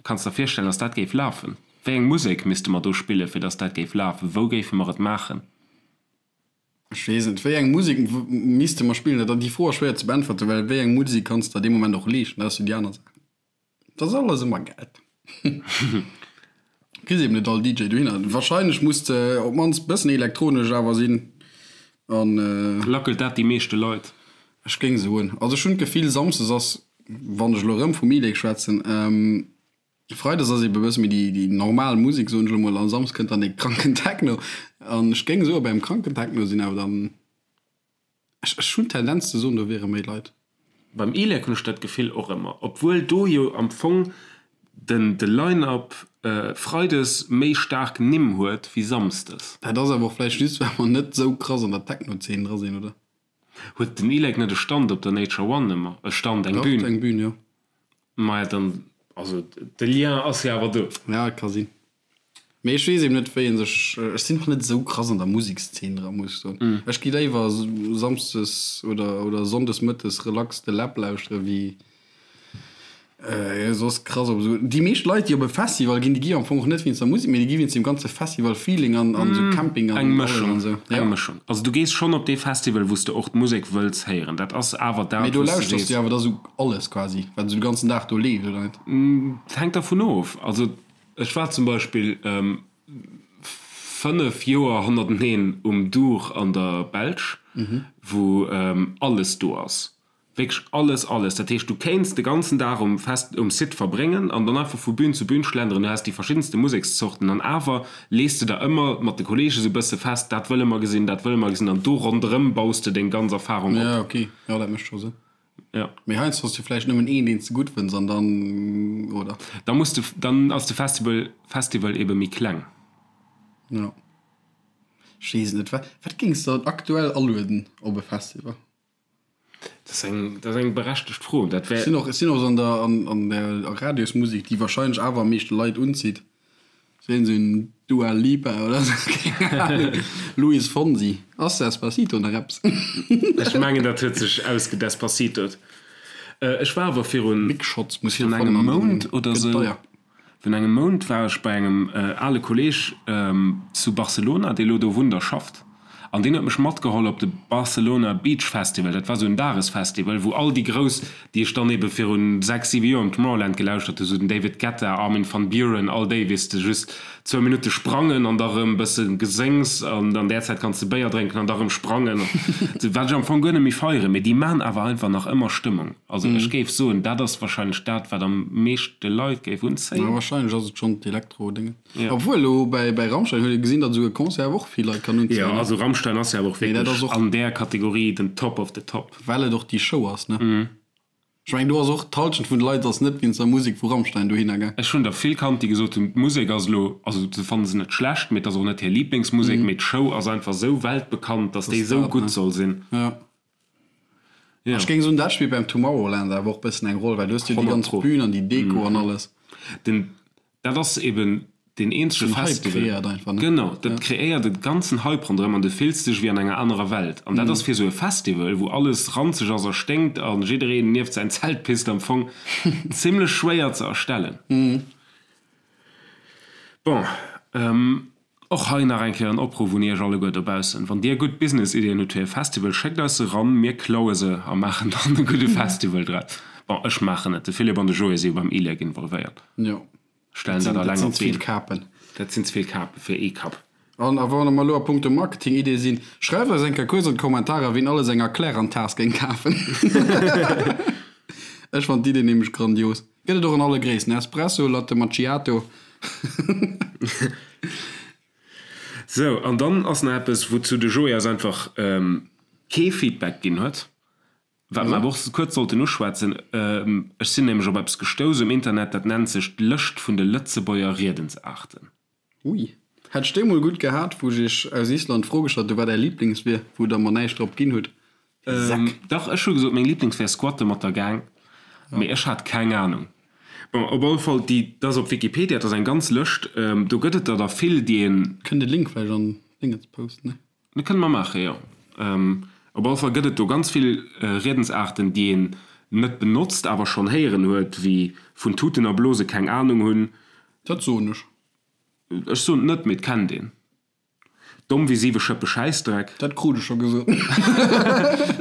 Kanns der virstellen, dass dat géif lafen? Wéi eng Musek misste mer do spillen, fir dass dat géif lafen? Wou géife mer et maachen? Ech weess net, wéi eng Musek misste mer spillen? Dat, déi Fro ass schwéier ze beäntwerten, well wéi eng Musek kanns de der dee Moment och leeschten? Dat ass jo déi aner Saach. Dat ass alles ëmmer Geld. Kriss eben net all DJ dohinner. Wahrscheinlech muss de op d'mannst bëssen elektronesch awer sinn an. Lackelt dat déi meeschte Leit? Ech géing soen, also ech hunn d'Gefill, samsdes ass, wann ech elo erëm vum E-Lake schwätzen, Freides ass ebe bësse méi déi déi normal Musek, soen ech elo mol, an Samsdes kënnt dann dee kranken Techno. An ech géing soen, beim kranken Techno sinn awer dann, ech ech hunn d'Tendenz ze soen, do wiere méi Leit. Beim E-Lake hunn ech dat Gefill och ëmmer, obwuel do jo am Fong den de Line-Up Freides méi staark Nimm huet wéi Samsdes. Dat ass awer och vläicht just, well mer net esou krass an der Techno-Zeen dra sinn, oder? Huet den E-Lake net e Stand op der Nature One ëmmer? E Stand, eng Bühn? Dach, eng Bühn, jo. Maja dann, also de Lien ass jo awer do. Ja, et ka sinn. Mee ech weess eben net, wéi ee sech, ech sinn och net esou krass an der Musekszeen dra, muss ech soen. Ech gi léiwer samsdes oder, oder sonndes mëttes relax de Läb lauschtere wéi soss krass op esou. Déi meescht Leit, déi op e Festival ginn, déi gi am Fong och net wéinst der Musek, mee déi gi wéinst dem ganze Festival-Feeling an, an esou Camping an Eng Mëschung, an esou. Eng Mëschung. Also du gees schonn op dee Festival, wou s de och d'Musek wëlls héieren. Dat ass awer dat, Mee do wou s de lauschterst du jo awer da sou alles quasi, wat esou de ganzen Dag do leeft, oder net? Et hänkt dervun of. Also ech war zum Beispill 5 Joer hannerteneen um Dour an der Belsch, wou alles do ass. Wierklech alles, alles. Dat heescht, du kéints de ganzen Dag um Fest, um Site verbréngen an dann einfach vu Bühn zu Bühn schlenderen. Du häss déi verschiddenste Musekszorten an awer lees de der ëmmer mat de Kollege sou bësse fest, dat wëlle mer gesinn, dat wëlle mer gesinn an do ronderëm baus de deng ganz Erfarung op. Ja, ok, jo, dat mécht scho Sënn. Ja. Mee heiansdo hues du vläicht nëmmen een, deen s de gutt fënns an dann, oder? Da muss de, dann ass de Festival, Festival ebe méi kleng. Jo. Ech weess et net. Wat, wat géings de dann aktuell alueden op e Festival? Dat ass eng, dat ass eng berechtegt Fro. Dat wär. Ech sinn och, ech sinn och esou an der, an, an der Radiosmusek, déi wahrscheinlech awer am meeschte Leit unzitt. Sinn esou en Dua Lipa oder esou, keng Ahnung. Luis Fonsi. Ass Despacito nach eppes? Ech mengen, dat huet sech ausgedespacitot. Ech war awer virun, Big Shots muss virun jo engem fannen an Mount dann oder gëtt esou, deier. Virun engem Mount war ech bei engem ale Kolleeg zu Barcelona, dee lo do wunnt a schafft, an deen huet mech matgeholl op de Barcelona Beach Festival. Dat war sou en Dagesfestival, wou all déi Grouss, déi ech dann ebe virun 6, 7 Joer um Tomorrowland gelauschtert hu, sou den David Guetta, Armin van Buuren, all déi, weess de, just zwou Minutte sprangen an da rëm bësse Geséngs an an där Zäit kanns de Béier drénken an da rëm sprangen, wat ech am Fong guer net méi feieren, mee déi man awer einfach nach ëmmer Stëmmung. Also ech géif soen, dat ass wahrscheinlech dat, wat am meeschte Leit géif unzéien. Ja, wahrscheinlech ass et schonn d'Elektro-Déngen. Obwuel elo bäi bäi Rammstein huet ee gesinn, datt esou e Concert awer och vill Leit kann unzéien. Jo, also Rammstein ass jo awer och wierklech an där Kategorie den Top of the Top. Well et och déi Show ass, ne? Ech mengen, do ass och d'Halschent vun de Leit ass net wéinst der Musek vu Rammstein dohinner gaang. Ech hunn der vill kannt, déi gesot hunn, d'Musek ass elo, also se fanne se net schlecht, mee et ass och net hir Liblingsmusek, mee d'Show ass einfach esou weltbekannt, datt déi esou gutt soll sinn. Jo. Ja. Ech géing soen, dat spillt beim Tomorrowland awer och bëssen eng Roll, well do hues du jo déi 100 ganz pro. Bühn an déi Deko an alles. Den, dat ass eben deen eenzege Den Hype Festival. kreéiert einfach, ne? Genau, dat kreéiert e ganzen Hype ronderëm an du fills dech wéi an enger anerer Welt. An dat ass fir esou e Festival, wou alles ranzeg ass a sténkt a jiddereen nieft säin Zelt pisst am Fong zimlech schwéier ze erstellen. Bon, och hei nach eng Kéier en Opruff un Iech alleguer dobaussen, Wann Dir gutt Business-Iddien hutt fir e Festival, schéckt eis se eran, mir klaue se a maachen dann e gudde Festival draus. Bon, ech maachen et, de Philippe an de Joé si jo beim ILEC involvéiert, Jo, stellen dat dat sinn, alleng dat op sinn ze vill d'Been. Kapen. Dat sinn ze vill Kape fir ee Kapp. An a wa mer elo a punkto Marketing-Iddie sinn, schreift eis eng Kéier kuerz an d'Kommentarer, wien alles eng Erklärantaas géing kafen. Ech fannen d'Idee nämlech grandios. Gëtt et och an alle Gréissten, Espresso, Latte Macchiato. Sou, an dann ass nach eppes, wouzou de Joé eis einfach kee Feedback ginn huet, wat mer awer och kuerz sollten uschwätzen. Ech sinn nämlech op eppes gestouss um Internet, dat nennt sech d'Lëscht vun de Lëtzebuerger Riedensaarten. Ui. Hätt ech déi mol gutt gehat, wou ech iech aus Island d'Fro gestallt hu wat är Lieblings wier, wou der mer näischt drop ginn hutt. Säck. Dach, ech hu gesot meng Lieblings wär Squatte mat der Gang, mee ech hat keng Ahnung. Bon, op alle Fall, déi, dat ass op Wikipedia, dat ass eng ganz Lëscht, do gëtt et der der vill, déi een. Kënnt de Link vläicht an d'Déngens posten, ne? Dat kënne mer maachen, jo. Op alle Fall gëtt et do ganz vill Riedensaarten, déi een net benotzt, awer schonn héieren huet, wéi vun Tuten a Blose keng Ahnung hunn. Dat soen ech. Ech soen et net, mee et kennt een. Domm wéi siwe Schëppe Schäissdreck. Dat krut ech scho gesot.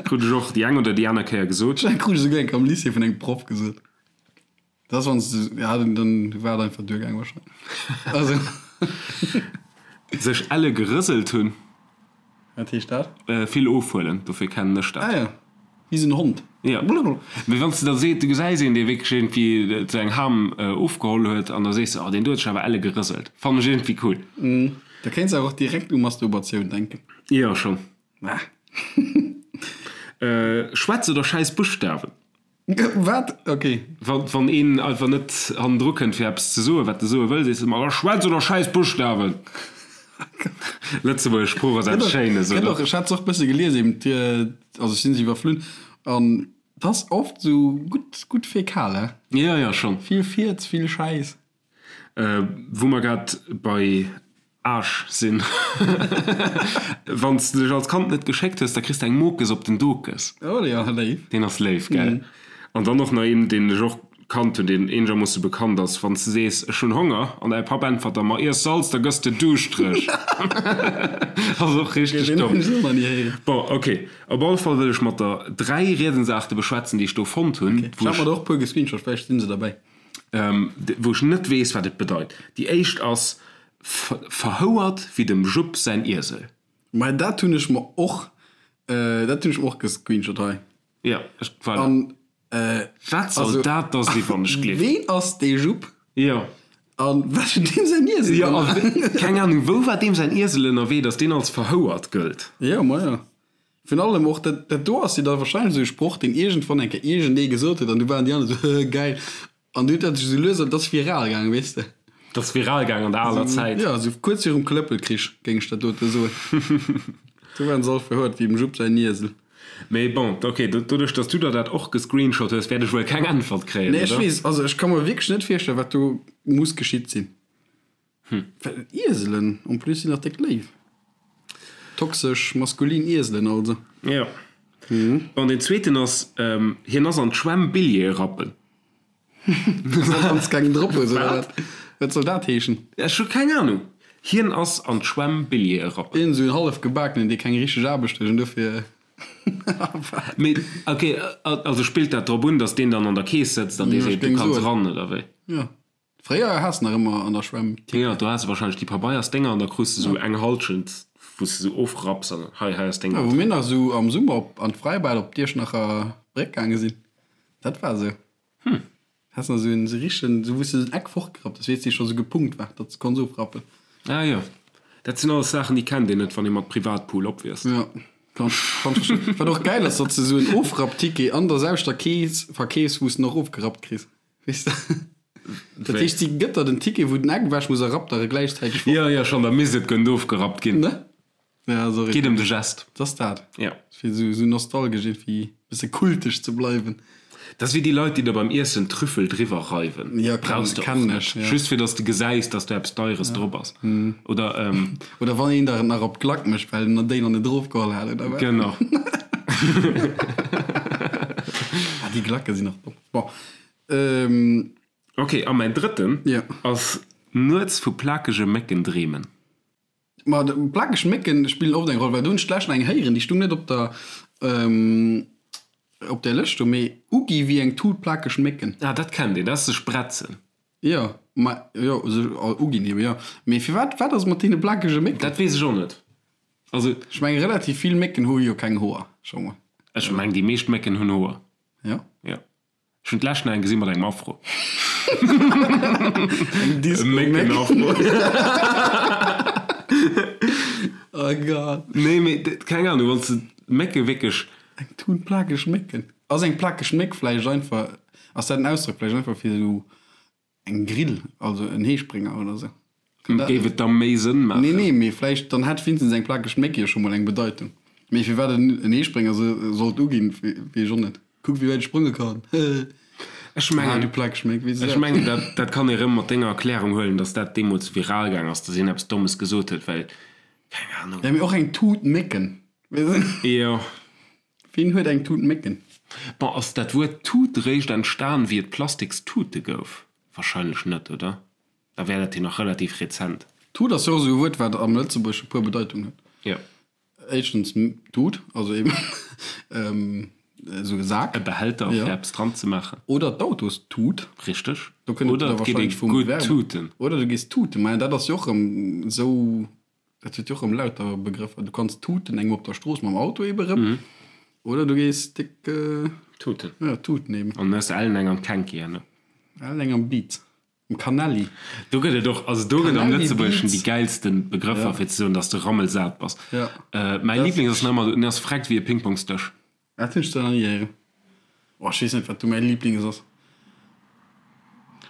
Krut ech och déi eng oder déi aner Kéier gesot. Dat krut ech esouguer eng Kéier am Lycée vun engem Proff gesot. Dat ass wann s de, ja, dann war et einfach duergaang wahrscheinlech. Also. Sech elle gerëselt hunn. Wat heescht dat? Vill ofhuelen, dofir kennen ech dat. Ah ja, wéi esou en Hond. Jo, mee wann s de da seet, du gesäis een, dee wierklech iergendwéi sou eng Ham ofgeholl huet an da sees de, oh deen do huet sech awer elle gerëselt. Fannen ech iergendwéi cool. Da kéints awer och direkt u Masturbatioun denken. Jo, schonn. Ah. Schwätz oder schäiss Buschtawen. Wat? Ok. Wann een einfach net hannendru kënnt fir eppes ze soen, wat e soe wëll, sees de ëmmer, Schwätz oder schäiss Buschtawen! Lëtzebuergesch Sprooch ass eppes Schéines, oder? Ech hat se och bësse gelies eben, also ech sinn se iwwerflunn an et ass oft esou gutt, gutt fäkal, he? Jo, jo, schonn. Vill Fierz, vill Schäiss. Wou mer grad bei Aasch sinn, Wann s de dech als Kand net geschéckt hues, da kriss de eng Mokes op den Dokes. Oh jo, léif. Deen ass léif, gell? An dann och nach een, deen ech och kannt hunn, deen eenegermoosse bekannt ass, Wann s de sees, Ech hunn Honger, an däi Papp äntwert der, Ma iess Salz, da gëss de duuschtereg. Ass och richteg Deen domm. hunn ech och nach ni héieren. Bon, ok. Op alle Fall wëll ech mat der 3 Riedensaarte beschwätzen, déi ech do fonnt hunn, Ok, ech hat mer der och e puer gescreenshot, vläicht sinn se derbäi. Wou ech net weess, wat et bedeit. Déi éischt ass, Verhouert wéi dem Jupp säin Iesel. Mä dat hunn ech mer och, dat hunn ech mer och gescreenshot hei. Jo, ech, voilà. An, Wat soll dat da si wann ech gleef? Ween ass dee Jupp? Jo. A wat huet deem säin Iesel Jo, gemaach? a keng Ahnung, wou war deem säin Iesel ënnerwee, datt deen als verhouert gëllt? Jo, ma jo. Virun allem och, dat, dat do ass jo da wahrscheinlech esou e Sproch, deen iergendwann eng Kéier iergendee gesot huet an du waren déi aner esou, hëhë, gäil. An du huet dat sech esou lues, an dat ass viral gaangen, weess de. Dat ass viral gaangen an der aler Zäit. Jo, esou kuerz virum Klëppelkrich, géing ech dat dote soen. Do waren se all verhuert wéi dem Jupp säin Iesel. Mee bon, ok, doduerch dass du der dat och gescreenshot hues, wäert ech wuel keng Äntwert kréien, Nee, ech weess, also ech ka mer wierklech net virstellen, wat do muss geschitt sinn. Well Ieselen en plus sinn nach déck léif. Toxesch maskulin Ieselen also. Jo. Bon, deen zweeten ass, hien ass an d'Schwämm Billjeeë rappen. Wann s keng drop hues, oder wat? Wat soll dat heeschen? Ech hu keng Anung. Hien ass an d'Schwämm Billjeeë rappen. Een esou en hallef gebakenen, dee keng richteg Aarbecht huet an dofir. Mee ok, also spillt dat drop un, datt deen dann an der Kees sëtzt an dee seet, du kanns eran, oder wéi? Jo. Fréier has nach ëmmer an der Schwämm Ticket. Jo, do has de wahrscheinlech déi Pabeiersdénger an da krus de sou eng Halschent wou s de sou ofrapps an hei, hei ass deng. Jo, wou mir nach sou am Summer op an d'Fräibad op d'Iechternacher Bréck gaange sinn, dat war sou. Hm. Has nach sou en sou richtegen, sou wou s de sou en Eck fortgerappt hues, weess, dee scho sou gepunkt war, datt s de konns ofrappen. Ah jo, dat sinn alles Saachen déi kennt een net wann ee mat Privatpool opwiesst. Jo, kann ech, kann ech verstoen. Wat och gäil ass, datt s de sou en Ofrappticket an der selwechter Kees verkeefs, wou s de en och ofgerappt kriss. Weess de? Dat heescht, si gëtt der den Ticket, wou den Eck ewech muss a rappt der e gläichzäiteg fort. Jo, jo, schonn, da misst et gënnt ofgerappt ginn. Ne? Ja, sorry. Geet ëm de Gest. Dat ass dat. Ja. Fir esou, esou nostalgesch iergendwéi bësse kultesch ze bleiwen. Dat ass wéi déi Leit, déi der beim Iessen Trüffel driwwer reiwen. Ja, kenn, Brauchs de och kennen net. ech, ja. Just fir dass de gesäis, dass do eppes Deieres drop ass. Oder, Oder wann een der et nach op d'Glack mécht, well en déi nach net erofgeholl hat, oder wat? Genau. Ah, déi Glacke sinn och domm. Bon. Ähm. Ok, a mäin drëtten Ja. ass nuets vu plakege Mécken dreemen. Ma plakeg Mécken spillen oft eng Roll, well do hunn ech d'lescht nach eng héieren, déi stung net op der, op där Lëscht do, mee ugi wéi eng Tut plakeg Mécken. Ah, dat kennt een, dat ass sech bretzen. Jo, ma jo, sech uginn eben, jo. Mee firwat, wat ass mat deene plakege Mécken? Dat weess ech och net. Also. Ech mengen, relativ vill Mécken hu jo keng Hoer, scho mol. Ech mengen, déi meescht Mécken hunn Hoer. Jo. Jo. Ech hunn d'lescht nach eng gesi mat engem Afro. Eng Disco-Méck. Mécken-Afro. Oh Gott. Nee, mee keng Ahnung, wann s de Mécke wierklech. Eng Tun plakeg Mécken. Ass eng plakeg Méck vläicht einfach, ass dat en Ausdrock vläicht einfach fir esou Eng Grill, also en Heesprénger oder sou. Kann dat Géif et da méi Sënn maachen? Nee, nee, mee vläicht dann hätt wéinstens eng plakeg Méck jo scho mol eng Bedeitung. Mee firwat en en Heesprénger se sollt uginn, weess ech och net. Kuck wéi wäit ech sprënge kann, hehe. Ech Ah, mengen, du plakeg Méck, weess ech dat? mengen, dat, dat kann ee rëm mat denger Erklärung huelen, datt dat deemools viral gaang ass, datt een eppes Dommes gesot huet, well, keng Ahnung. Ja, mee och eng Tut Mécken, weess de? Jo. Wien huet eng Tut Mécken? Bon, ass dat Wuert Tut réischt entstan wéi et plastiks Tute gouf? Wahrscheinlech net, oder? Da wär dat jo nach relativ rezent. Tut ass jo och esou e Wuert, wat am Lëtzebuergesche puer Bedeitungen huet. Jo. Éischtens Tut, also eben esou e Sak. E Behälter, fir eppes dran ze maachen. Oder d'Autostut. Richteg. Do kënnt et Oder da et geet ee wahrscheinlech vum gutt Verb. tuten. Oder du gees tuten. Maja, dat ass jo och erëm esou. Dat huet jo och erëm lauter Begrëffer. Du kanns tuten engem op der Strooss mam Auto ebe rëm. Oder du gees déck. Tuten. Ja, tuten eben. An hues ellen eng am Kenki herno. Ellen eng am Beat. Am Kanelli. Do gëtt et och, also do gëtt am Kanelli, Lëtzebuergeschen déi Beats. gäilste Begrëffer, fir ze soen, dass de rammelsat bass. Ja. Mäi Liblings ass nach ëmmer, en ass vreckt wéi e Pingpongsdësch. Dat hunn ech zwar nach ni héieren. Oh, ech weess net, wat do mäi Liblings ass.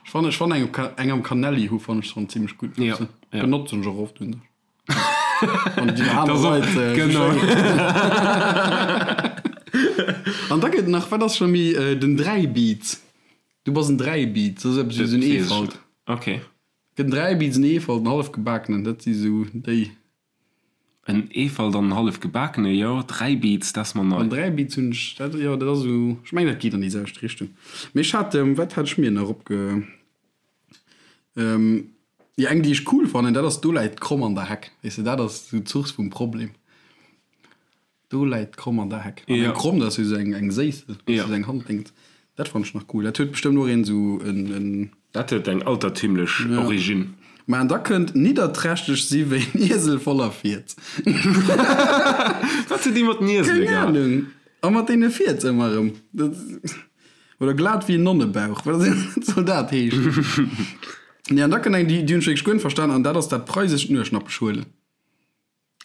Ech fannen, ech fannen eng eng am Canelli hu fannen ech schonn zimmlech gutt. Ja, ja. Benotzen ech och oft un sech. Wann déi aner Das och, Leit äh, genau. An da gëtt nach, wat ass scho méi, äh, den Dräibiz. Du bass en Dräibiz, dat ass eppes wéi esou en Eefalt. Okay. Gëtt en Dräibiz, en Eefalt, en Hallefgebakenen, dat si sou déi. En Eefalt an en hallef gebakene, jo. Dräibiz, dat ass mer nei. An Dräibiz hunn ech, dat, jo, dat ass esou, ech mengen, dat geet an déi selwecht Richtung. Mee ech hat, wat hat ech mir nach opge, jo, eng, déi ech cool fannen, dat ass Do läit d'Kromm an der Heck. Weess de, dat ass esou d'Source vum Problem. Do läit d'Kromm an der Heck. An eng Kromm, dat ass jo esou eng, eng Séissel, Ja. esou eng Handdéngt. Dat fannen ech nach cool. Dat huet bestëmmt och een esou en, en. Dat huet eng altertümlech Origine. Mä an da kënnt nidderträchteg si wéi en Iesel voller Fierz. Wat huet déi mat den Iesele Keng gehat? Ahnung. A mat deene Fierz ëmmer erëm. Dat, oder glat wéi en Nonnebauch. Wat soll dat heeschen? Nee, an da kënnt eng, déi, déi hunn ech wierklech guer net verstan, an dat ass dat preisescht Nueschnappech huelen.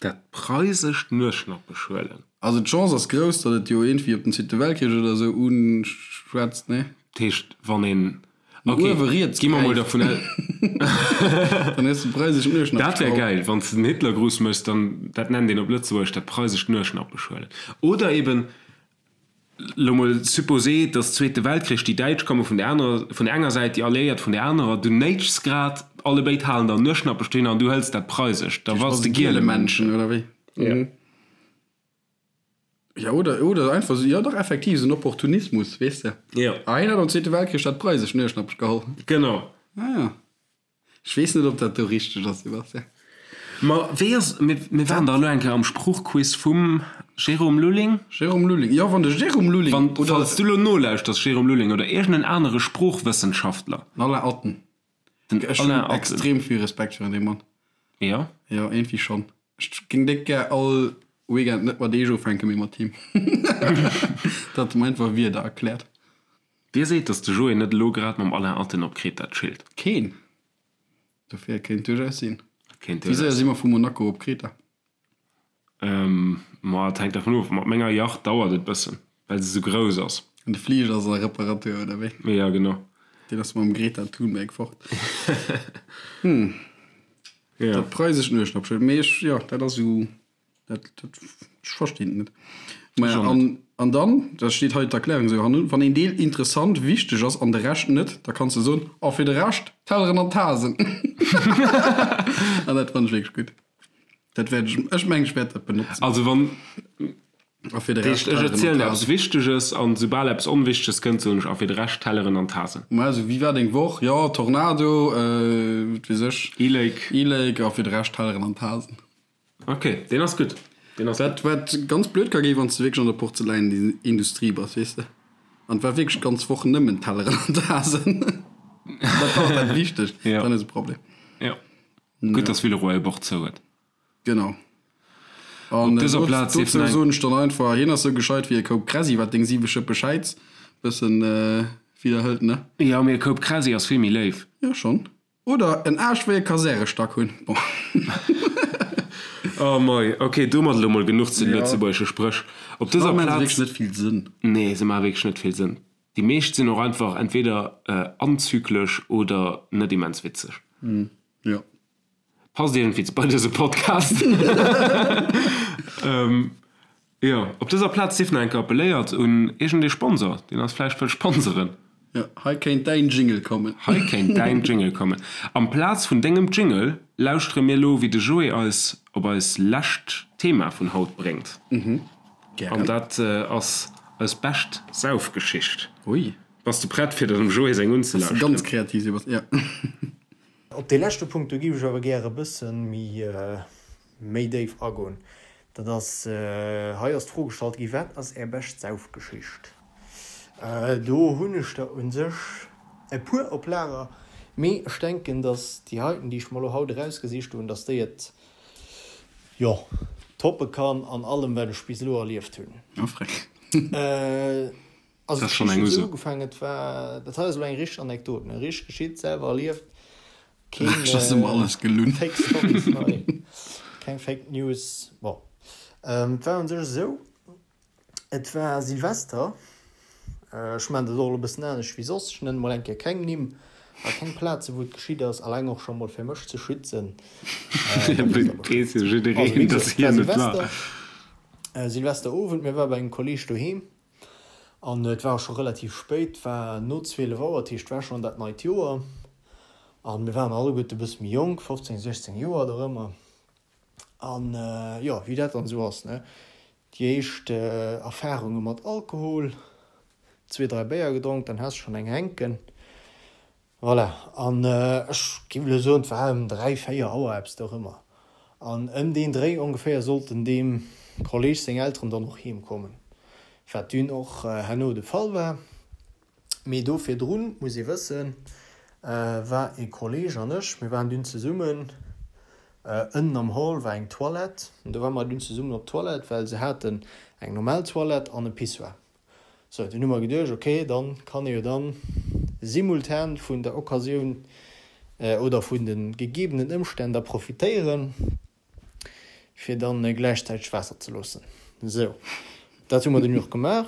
Dat preisescht Nueschnappesch huelen. Also d'Chance ass grouss, datt et jo iergendwéi op den Zweete Weltkrich oder esou uschwätzt, nee? Dat heescht, wann een, No ok, uewe riets gi mer mol gräift, dervun aus. Dann hues de preisescht Dat wär Nueschnappeschraub. gäil, wann s de den Hitlergruß méchs, dann, dat nennt een op Lëtzebuergesch dat preisescht Nueschnappesch huelen. Oder eben, Lo mol supposé, dass Zweete Weltkrich, déi Däitsch komme vun der anerer, vun der enger Säit, déi Alliéiert vun der anerer, du néitschs grad, allebéid halen der Nueschnappech dohinner an du hëls dat Preisescht, da bass de Gielemännchen, oder wéi? Jo. Jo, oder, oder einfach esou, jo dach, effektiv, esou en Opportunismus, weess de. Jo. Ah, hien hat am Zweete Weltkrich dat Preisescht Nueschnappech geholl. Genau. Ah ja. Ech weess net, ob dat do richteg ass, Sebastian. Ma wéi ass, mir, mir waren dach elo eng Kéier am Sproochquiz vum Jérôme Lulling. Jérôme Lulling, jo, wann de Jérôme Lulling Wann, oder. falls du elo nolauschters, Jérôme Lulling oder iergend en anere Sproochwëssenschaftler. Den Alain Atten. Den Ech hunn Alain Atten. extrem vill Respekt virun deem Mann. Jo? Jo, iergendwéi schonn. Ech géing déck gär all Weekend net mat Eech ufänken, mee mat him. Datt e mer einfach Wierder erkläert. Wie seet, datt de Joé net elo grad mam Alain Atten op Kreta chillt? Keen. Dofir, et kéint duerchaus sinn. Et kéint Wéi séier duerchaus si mer vu Monaco op Kreta? Ma et hänkt dervun of. Mat menger Yacht dauert et bëssen, well se sou grouss ass. An de Fliger ass a Reparatur, oder wéi? Jo, genau. Deen ass mam Greta Thunberg fort. Hm. Jo. Dat preisescht Nueschnappschëld. Mee ech, jo, dat ass esou. Dat, dat, ech verstinn et net. Maja, Ech och an, net. an dann, da steet hei d'Erklärung esou hannun, wann een Deel interessant, wichteg ass an de Rescht net, da kanns de soen, a fir de Rescht, Telleren an Tasen. An dat fannen ech wierklech gutt. Dat wäert ech, ech mengen, ech wäert dat benotzen. Also wann, A fir de dat Rescht, heescht, ech Telleren an erzielen eppes Tasen. Wichteges an soubal eppes Onwichteges kënnt, soen ech, a fir de Rescht, Telleren an Tasen. Ma esou, wéi war deng Woch? Jo, Tornado, äh, wat weess ech. E-Lake. E-Lake, a fir de Rescht, Telleren an Tasen. Ok, deen ass gutt. Deen ass Wat, wat ganz blöd ka ginn, wann s de wierklech an der Porzeläinindustrie bass, weess de. An et war wierklech d'ganz Woch nëmmen Telleren an Tasen. Dat war och dat Wichtegst. Ja. Dann ass e Problem. Ja. Gutt, dass Villeroy e Bord zou huet. Genau. An Op dëser Plaz dozou dierf nach eng. soen ech dann einfach, hien ass sou gescheit wéi e Koup Kräsi, wat deng siwe Schëppe Schäiz bëssen widderhëlt, ne? Jo, mee e Koup Kräsi ass vill méi léif. Jo, schonn. Oder en Aascht wéi e Kasärestack hunn. Bon. Oh mei, ok, domat elo mol genuch zu den Ja. lëtzebuergesche Spréch. Op dëser Maachen se Plaz. wierklech net vill Sënn. Nee, se maache wierklech net vill Sënn. Déi meescht sinn och einfach entweder anzyklesch oder net immens witzeg. Jo. Passt iergendwéi bei dëse Podcast. Jo, op dëser Plaz sief nach eng Kéier appelléiert un iergendee Sponsor, deen eis vläicht wëll sponseren. Jo, hei kéint däin Jingle kommen. Hei kéint däin Jingle kommen. Amplaz vun dengem Jingle lauschtere mir elo, wéi de Joé eis op eis lescht Thema vun haut bréngt. Gären. An dat ass eis bescht Saufgeschicht. Ui. Bass de prett, fir der dem Joé seng Bass de unzelauschteren? ganz kreativ, Sebastian. Jo. Op dee leschte Punkt, do géif ech awer gäre e bësse méi, méi déif agoen. Dat ass, hei ass d'Fro gestallt gi, Wat ass Är bescht Saufgeschicht? Do hunn ech der u sech e puer op Lager, mee ech denken, datt déi heiten, déi ech mer elo haut erausgesicht hunn, datt déi et, jo, toppe kann an allem, wat ech bis elo erlieft hunn. Oh, freck. Also Dat ass schonn d'Geschicht eng huet esou Uso. ugefaangen, et war, dat hei ass elo eng richteg Anekdot, ne, richteg geschitt, selwer erlieft, keen Ech ass ëmmer alles gelunn. Fake Stories hei, keng Fake News. Bon, et war un sech esou, et war Silvester, ech maachen dat och elo e bëssen anescht wéi soss, ech nennen mol eng Kéier keng Nimm a keng Plaze wou et geschitt ass, alleng och scho mol fir mech ze schützen. Weess jo Also wéi jiddereen, gesot, dass et war hien et war. Silvester, Silvesterowend, mir ware bei engem Kolleeg doheem. An et war och scho relativ spéit, et war no 12 Auer, dat heescht et war schonn dat neit Joer. A mir waren alleguerte e bësse méi jonk, 15, 16 Joer dorëmmer. An jo, wéi dat dann esou ass, ne, déi éischt Erfarunge mat Alkohol, zwee, dräi Béier gedronk, dann has de schonn eng hänken. Voilà, an ech géif elo soen, et war ëm 3, 4 Auer, eppes dorëmmer. An ëm deen Dréi ongeféier sollten deem Kolleg seng Elteren dann och heem kommen, wat dunn och herno de Fall war. Mee do virdrun, muss ee wëssen, war ee Kolleg an ech, mir waren dunn zesummen, ënnen am Hall war eng Toilette, an do ware mer dunn zesummen op d'Toilette, well se haten eng normal Toilette an e Pissoir. Sou, dunn hu mer geduecht, ok, dann kann ee jo dann simultan vun der Occasioun oder vun de gegebenen Ëmstänn da profitéieren, Fir dann gläichzäiteg Waasser ze loossen. Sou, dat hu mer dunn och gemaach.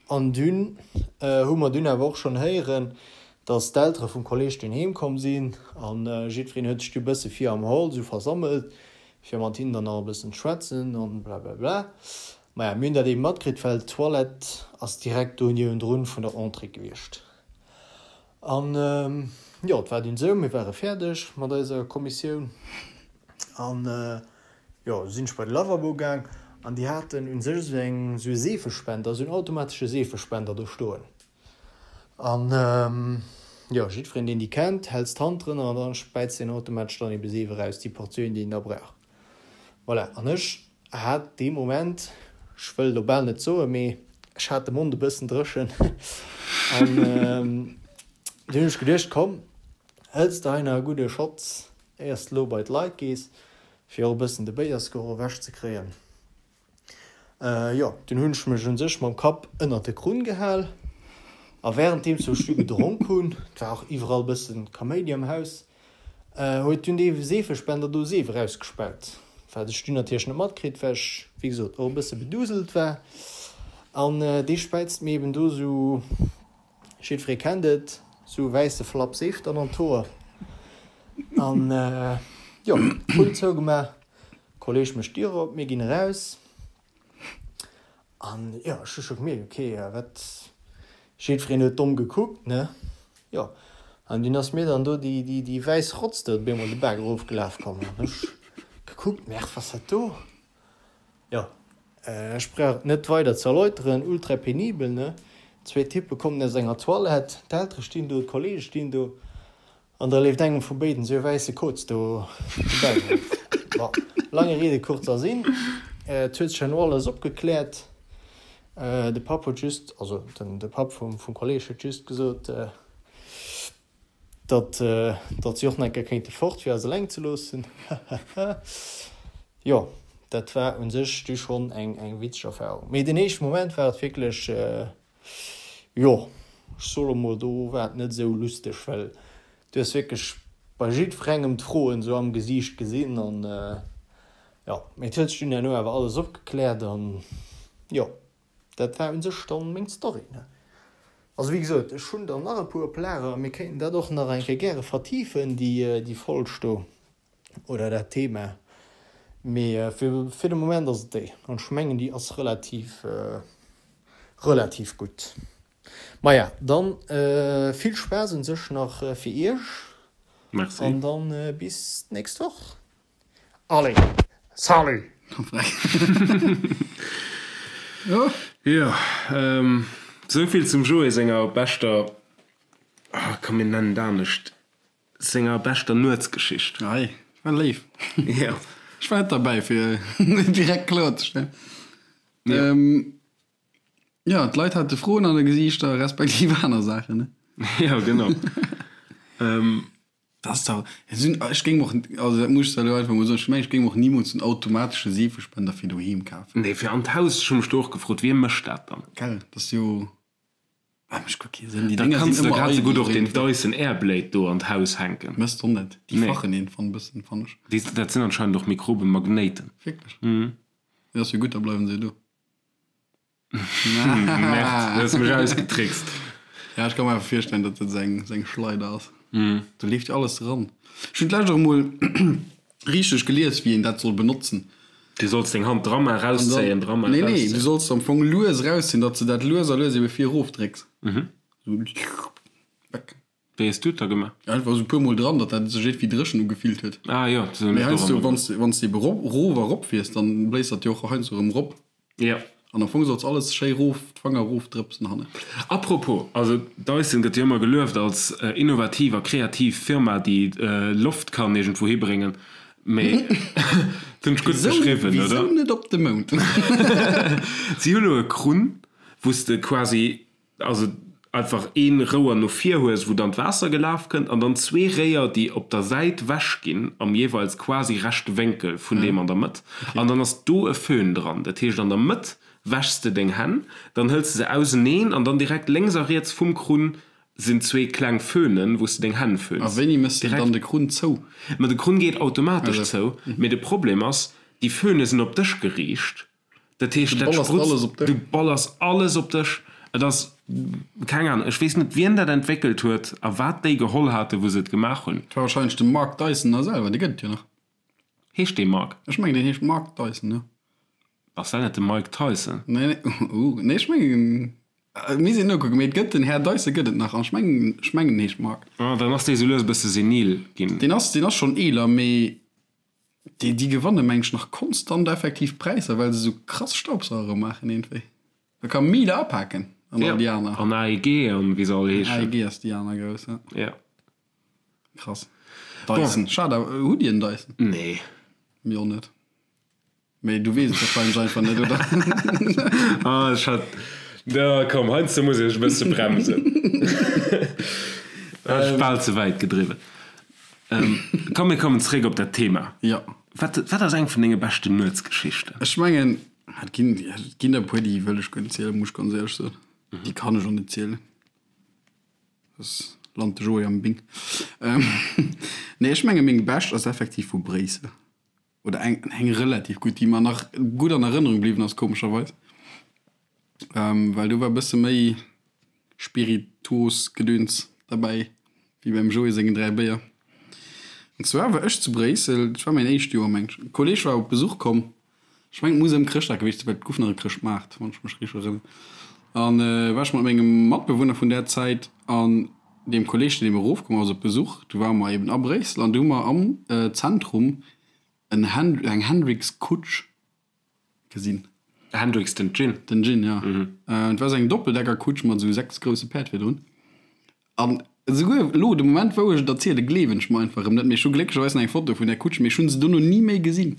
An dunn hu mer dunn awer och schonn héieren, dass d'Eltere vum Kolleg dunn heem komm sinn an jiddwereen huet sech du bësse vir am Hall sou versammelt, fir mat hinnen dann nach e bëssen ze schwätzen an blablabla. Maja, mir hunn dat eeben matkritt, well d'Toilette ass direkt do niewendrun vun der Entrée gewiescht. An jo, et war dunn esou, mir ware fäerdeg mat eiser Kommissioun an jo, du sinn ech bei de Lavabo gaang an déi haten u sech esou eng, esou e Seefespender, esou en automatesche Seefespender do stoen. An jo, jiddwereen, deen déi kennt, häls d'Hand drënner an da späizt deen automatesch dann ebe Seef eraus, déi Portioun, déi een da brauch. Voilà, an ech hat dee Moment, ech wëll elo bal net soen, mee ech hat de Mond e bëssen dréchen an dunn hunn ech geduecht, komm, hëls de hei nach e gudde Schotz, éiers de elo bei d'Leit gees, fir och e bëssen de Béiersgeroch ewechzekréien. Jo, dunn hunn ech mech un sech mam Kapp ënnert de Krunn gehal a wärenddeems wou ech du gedronk hunn, et war och iwwerall bëssen Kaméidi am Haus, huet dunn dee Seefespender do Seef erausgespaut, wat ech dunn natierlech net matkritt, well ech, wéi gesot, och e bësse beduselt war. An dee späizt mir eben do sou, jiddweree kennt et, sou e wäisse Flapp Seef dann an d'Hoer. An jo, Krunn zougemaach. Kolleg mécht d'Dier op, mir ginn eraus an jo, ech hu scho gemierkt, ok, wat, jiddwereen huet domm gekuckt, ne, jo, an dunn ass mir dann do déi, déi, déi wäiss Rotz do op eemol de Baak erofgelaf komm an ech gekuckt, merr, was dat do? Jo, ech brauch et net weider ze erläuteren, ultra penibel, ne, zwee Typpe kommen aus enger Toilette, d'Eltere stinn do, d'Kollege stinn do. An da leeft engem vu béiden esou e wäisse Koz do de Bauch erof. Bon, lange Rede, kurzer Sinn, et huet sech herno alles opgekläert. De Papp huet just, also de Papp vum Kolleg huet just gesot, datt datt si och nach eng Kéier kéinte fort, fir eis eleng ze loossen. Hahaha. Jo, dat war u sech du schonn eng witzeg Erfarung. Mee den éischte Moment war et wierklech, Jo, ech soe lo mol, do war et net esou lusteg, well du hues wierklech bei jiddwerengem d'Froen esou am Gesiicht gesinn an jo, mee et huet sech dunn herno awer alles opgekläert an jo, dat war un sech dann meng Story, ne. Also wéi gesot, ech hunn der nach e puer op Lager, mir kéinten dat och nach eng Kéier gäre vertifen, déi déi Folg do oder dat Thema, mee fir fir de Moment ass et déi an ech mengen déi ass relativ relativ gutt. Maja, dann vill Spaass un sech nach fir iech. Merci. An dann bis d'nächst Woch. Allez, salut! Jo, souvill zum Joé senger beschter, ah komm mir nennen et anescht, Senger beschter Nuetsgeschicht. Ei, war léif. Jo. Ech war net derbäi, fir et direkt kloerzestellen. Jo. Jo, d'Leit hate Froen an de Gesiichter, respektiv aner Saachen, ne? Jo, genau. Dat ass dach, ech géing och, also dat muss ech elo einfach mol soen, ech mengen, ech géing och nimools en automatesche Seefespender fir doheem kafen. Nee, fir an d'Haus, ech hu mech do och gefrot, wie mécht dat dann? Gell, dat ass jo. Ah, mécht guer kee Sënn. Déi Da Dénger kanns sinn de ëmmer grad sou eidel gutt och den iergendwéi. Dyson Airblade do an d'Haus hänken. Mësst och net. Déi Nee. fachen een fann bëssen, fann ech. Déi, dat sinn anscheinend och Mikrobemagnéiten. Wierklech? Mhm. Jo, ass jo gutt, da bleiwen se jo do. Merde, du hues mech ausgetrickst. Ja, ech ka mer einfach virstellen, datt dat seng, seng Schleider ass. Do leeft jo alles eran. Ech hunn d'lescht och emol richteg gelies, wéi een dat soll benotzen. Du solls deng Hand dra man, rauszéien, dra man, Nee, nee, rauszéien. du solls am Fong lues erauszéien, datt s de dat lues a lues ebe vir erof drécks. Sou weg. Wéi hues du et da gemaach? Einfach esou e puer Mol dran, datt dat sech iergendwéi dréchen ugefillt huet. Ah jo, sou hunn Mee ech et och heiansdo, ëmmer wann s de, wann s de ebe rop, rof a rop fiers, dann bléist dat jo och heiansdo erëm rop. Jo. An am Fong solls alles schéi rof, d'Fanger rof drëpsen hannen. Apropos, also Dyson gëtt jo ëmmer gelueft als innovativ a kreativ Firma, déi Loft kann iergendwou hibréngen, mee dat hunn ech gutt beschriwwen, oder? Wisou net op de Mound? Si hu lo e Krunn, wou s de quasi Also einfach een Rouer no vir hues wou dann d'Waasser gelaf kënnt an dann zwee Réier déi op der Säit wech ginn am jeeweils quasi rechte Wénkel vun deem an der Mëtt an dann ass do e Föhn dran. Dat heescht an der Mëtt wäschs de deng Hänn, dann hëls de se auseneen an dann direkt lénks a riets vum Krunn sinn zwee kleng Föhnen wou s de deng Hänn A föhns. wéini mëss de Direkt. dann de Krunn zou? Ma de Krunn geet automatesch zou, mee de Problem ass. Déi Föhne sinn op dech geriicht. Dat heescht, dat sprutzt, du ballers alles op dech. Et ass, keng Ahnung, ech weess net, wien dat entwéckelt huet a wat déi geholl haten, wou se et gemaach hunn. Et war wahrscheinlech de Mark Dyson da selwer, dee gëtt et jo nach. Heescht dee Mark? Ech mengen, deen heescht Mark Dyson, jo. Ass dat net de Mike Tyson? Nee, nee, uh, nee, ech mengen, mir sinn nokucken, mee et gëtt den Här Dyson gëtt et nach an ech mengen, ech mengen, en heescht Mark. Ah, dann ass dee sou lues e bësse senil ginn. Deen ass, deen ass schonn eeler, mee déi, déi gewanne meng ech nach konstant effektiv Präisser, well se sou krass Staubsauere maachen iergendwéi. Da ka Miele apaken an all déi aner. An AEG an wéi se all heeschen. AEG ass déi aner grouss, ja. Ja. Krass. Dyson. Schad awer, hutt Dir en Dyson? Nee. Mir och net. Mee du weess et wahrscheinlech einfach net, oder? Ah, ech hat, da komm, heiansdo muss ech e bësse bremsen. Hat ech bal ze wäit gedriwwen. Komm, mir kommen zeréck op dat Thema. Ja. Wat, wat ass eng vun denge beschten Nuetsgeschichten? Ech mengen, et ginn, et ginn der e puer, déi wëll ech guer net zielen, muss ech ganz éierlech soen. Déi kann ech och net zielen. Soss lant de Joé am Bing. Nee, ech menge meng bescht ass effektiv vu Bréissel. Oder eng, eng relativ gutt, déi mer nach gutt an Erënnerung bliwwen ass, komescherweis. Well do war e bësse méi Spirituosgedöns derbäi wéi beim Joé sengen 3 Béier. An zwar war ech zu Bréissel, dat war mäin éischt Joer meng ech, e Kolleeg war op Besuch komm, ech mengen et muss ëm Chrëschtdag gewiescht sinn, well et guff nach e Chrëschtmaart, wann ech mech richteg erënneren, an war ech mat mengem Matbewunner vun där Zäit an deem Kolleeg, deen eben erofkomm ass op Besuch, du ware mer eben a Bréissel an du hu mer am Zentrum en eng Hendrick's-Kutsch gesinn. Hendrick's, den Gin? Den Gin, ja. Et war esou eng Doppeldeckerkutsch mat esou 6 grousse Päerd virdrun. An esouguer elo, de Moment wou ech et erzielen, gleewen ech mer einfach erëm net. Mee ech hu glécklecherweis nach eng Foto vun där Kutsch, mee ech hu se dono ni méi gesinn.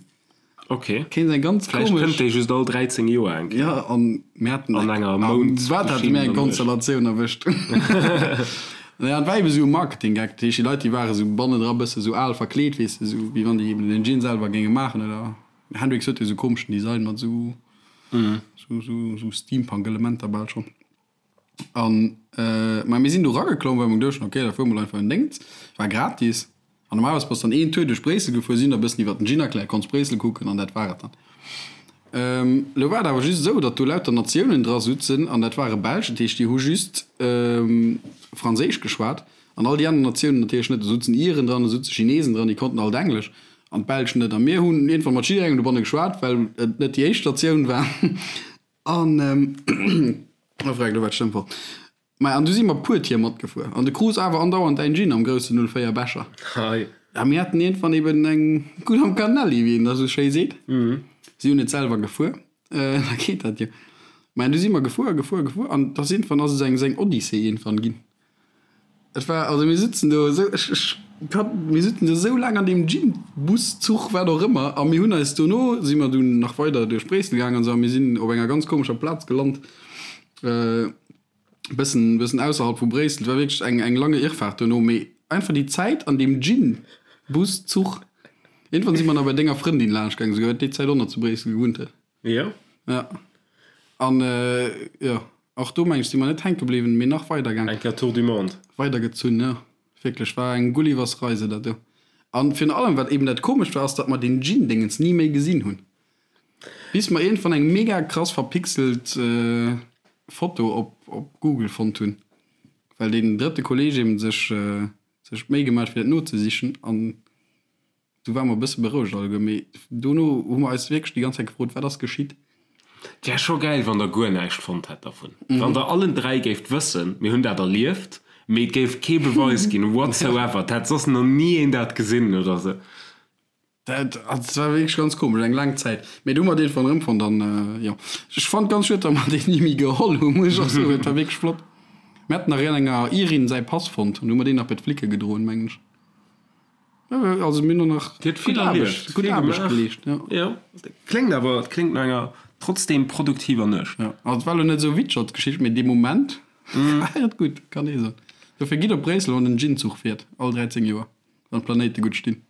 Ok. Kéint eng ganz Vläicht komesch. kënnt déi just all 13 Joer eng Kéier. Ja, an mir haten An enger Mound. Wat hate mir eng Konstellatioun erwëscht. Naja, et war eben esou e Marketing-Gag. Dat heescht, déi Leit, déi ware sou bannendra bësse sou al verkleet, weess de, sou wéi wann déi eben den Gin selwer géinge maachen oder. Hendrix huet jo sou komeschen Design mat sou sou Steampunk-Elementer bal schonn. An ma mir sinn do rageklomm, well mer geduecht hunn, ok, da fuere mol einfach en Déngens. War gratis. An normalerweis bass dann een Tour duerch Bréissel gefuer, si hunn der e bëssen iwwer den Gin erkläert, konns Bréissel kucken an dat war et dann. Elo war et awer just esou, datt do lauter Natiounen dra sutzen an dat ware Belsch, dat heescht déi hu just Franséisch geschwat. An all déi aner Natiounen natierlech net. Do sutzen Iren dran, do sutze Chinesen dran, déi konnten alt Englesch an d'Belsch net. A mir hunn iergendwann mat jidderengem dobanne geschwat, well et net déi éischt Natioun war. An, oh freck, elo war d'Stëmm fort. Maja, an du si mer puer Tier matgefuer. An de krus awer andauernd däin Gin am groussen 04 Becher. Hei. A mir haten iergendwann eben eng gutt am Canelli, wéi een da sou schéi seet. Si hunn et selwer gefuer. Da geet dat jo. Maja, du si mer gefuer a gefuer a gefuer an da sinn, ass et eng seng Odyssee iergendwann ginn. Et war, also mir sitzen do esou, ech, ech kann, mir sitzen do esou laang an deem Gin, Bus, Zuch, wat och ëmmer, a mir hunn eis dono, si mer dunn nach weider duerch Bréissel gaangen an esou, a mir sinn op enger ganz komescher Plaz gelant, bëssen, bëssen ausserhalb vu Bréissel. Et war wierklech eng, eng lange Irrfahrt dono, mee einfach déi Zäit an deem Gin, Bus, Zuch. Iergendwann si mer nach bei denger Frëndin laanscht gaangen, esouguer, déi Zäit och nach zu Bréissel gewunnt huet. Jo. Ja. An jo, och do meng ech si mer net hänke bliwwen, mee nach weider gaang. Eng Kéier Tour du monde. Weider gezunn, jo. Wierklech, war eng Gullivers Reise dat do. An virun allem, wat eben dat komescht war, ass datt mer deen Gin-Dingens ni méi gesinn hunn. Bis mer iergendwann eng mega krass verpixelt Foto op op Google fonnt hunn, well deen drëtte Kolleg eben sech sech d'Méi gemaach huet fir dat nozesichen an Du ware mer e bësse berouegt alleguer, mee dono hu mer eis wierklech déi ganz Zäit gefrot, wat ass geschitt? Et wär scho gäil, wann der guer näischt fonnt hätt dervun. Wann der allen 3 géift wëssen, mir hunn dat erlieft, mee et géif kee Beweis ginn whatsoever, et hätt soss nach ni een dat gesinn oder sou. Dat war wierklech ganz komesch, eng laang Zäit. Mee du hu mer deen von erëmfonnt an jo, ech fannt ganz schued, datt mer deen ni méi geholl hunn, muss ech och soen. Et war wierklech flott. Mir haten nach enger Irin säi Pass fonnt an du hu mer deen nach bei d'Flicke gedroen, mengen ech. Also mir hunn nach Dir hutt vill erlieft, gutt Aarbecht geleescht, jo. Jo, kléngt awer, et kléngt no enger trotzdem produktiver Nuecht. Jo, also et war elo net esou witzeg als Geschicht, mee dee Moment war et gutt, kann ee soen. Dofir gitt op Bréissel, wann den Gin-Zuch fiert, all 13 Joer, wann d'Planéite gutt stinn.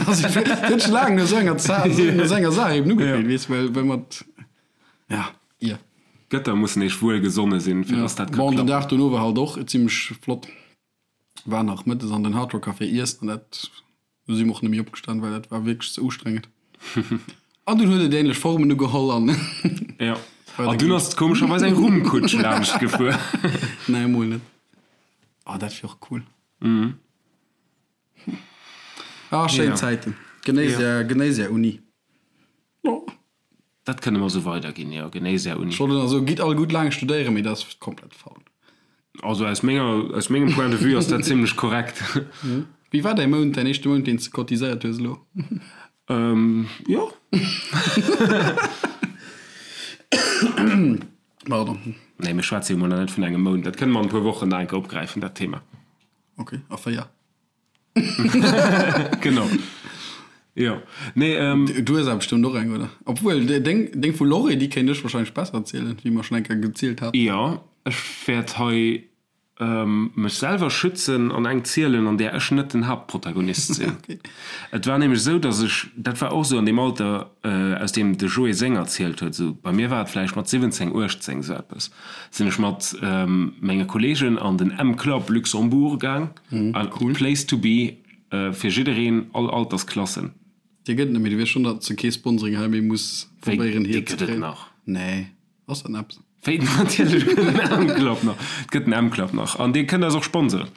Also et huet sech laang no esou enger Za-, no esou enger Saach eben ugefillt, weess, well, well mat, ja, ier. D'Gëtter mussen eech wuel gesonne sinn, fir dass dat ka klappen. Bon, den Dag dono war halt och zimlech flott. War nach mëttes an den Hard Rock Café iessen an dat, do si mer och net méi opgestan, well dat war wierklech ze ustrengend. An dunn huet et ähnlech Formen ugeholl an. Jo. An dunn ass komescherweis eng Rummkutsch laanscht gefuer. Nee, emol net. Oh, dat wier och cool. Ah, schéin Zäiten. Genéiss är, genéiss är Uni. Oh. Dat kënne mer esou weiderginn, jo. Genéiss är Uni. Ech wollt elo soen, gitt all gutt laang studéieren, mee dat ass komplett faul. Also aus menger, aus mengem Point de vue ass dat zimlech korrekt. Wéi war däi Mount, däin éischte Mount, deen s de cotiséiert hues elo? Jo. Pardon. Nee, mir schwätze jo mol nach net vun engem Mount. Dat kënne mer an e puer Wochen nach eng Kéier opgräifen, dat Thema. Ok, a 4. Genau. Jo. Nee, ähm. Du hues awer bestëmmt och eng, oder? Obwuel, deng, deng vu Lorry, déi kéint ech wahrscheinlech besser erzielen, wéi mer schonn eng Kéier gezielt haten. Jo, ech wäert hei mech selwer schützen an eng zielen, an där ech net den Haaptprotagonist sinn. Et war nämlech esou, datt ech, dat war och esou an deem Alter, aus deem de Joé seng erzielt huet, esou bei mir war et vläicht mat 17, 18, esou eppes, sinn ech mat menge Kolleegen an den M-Club Luxembourg gaang, cool place to be fir jiddereen, all Altersklassen. Dee gëtt et net méi, du weess schonn, datt s de kee Sponsoring hei méi muss probéieren hier ze kréien. Wéi, dee gëtt et nach? Nee. Ass dat eppes? Wéi, natierlech gëtt en M-Club nach. Et gëtt en M-Club nach. An dir kënnt eis och sponsoren.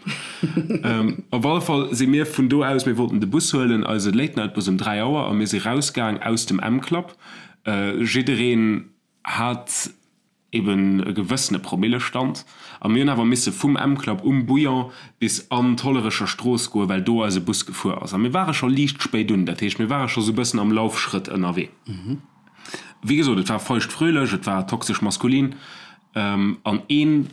Op alle Fall si mir vun do aus, mir wollten de Bus huelen, eise Late-Night-Bus um 3 Auer, a mir si rausgaang aus dem M-Club. Jiddereen hat eben e gewëssene Promillestand. A mir hunn awer misse vum M-Club um Bouillon bis an d'Hollerecher Strooss goen, well do eise Bus gefuer ass. A mir ware scho liicht spéit un. Dat heescht, mir ware scho sou e bëssen am Laufschrëtt ënnerwee. Wéi gesot, et war feucht-fröhlech, et war toxesch maskulin an een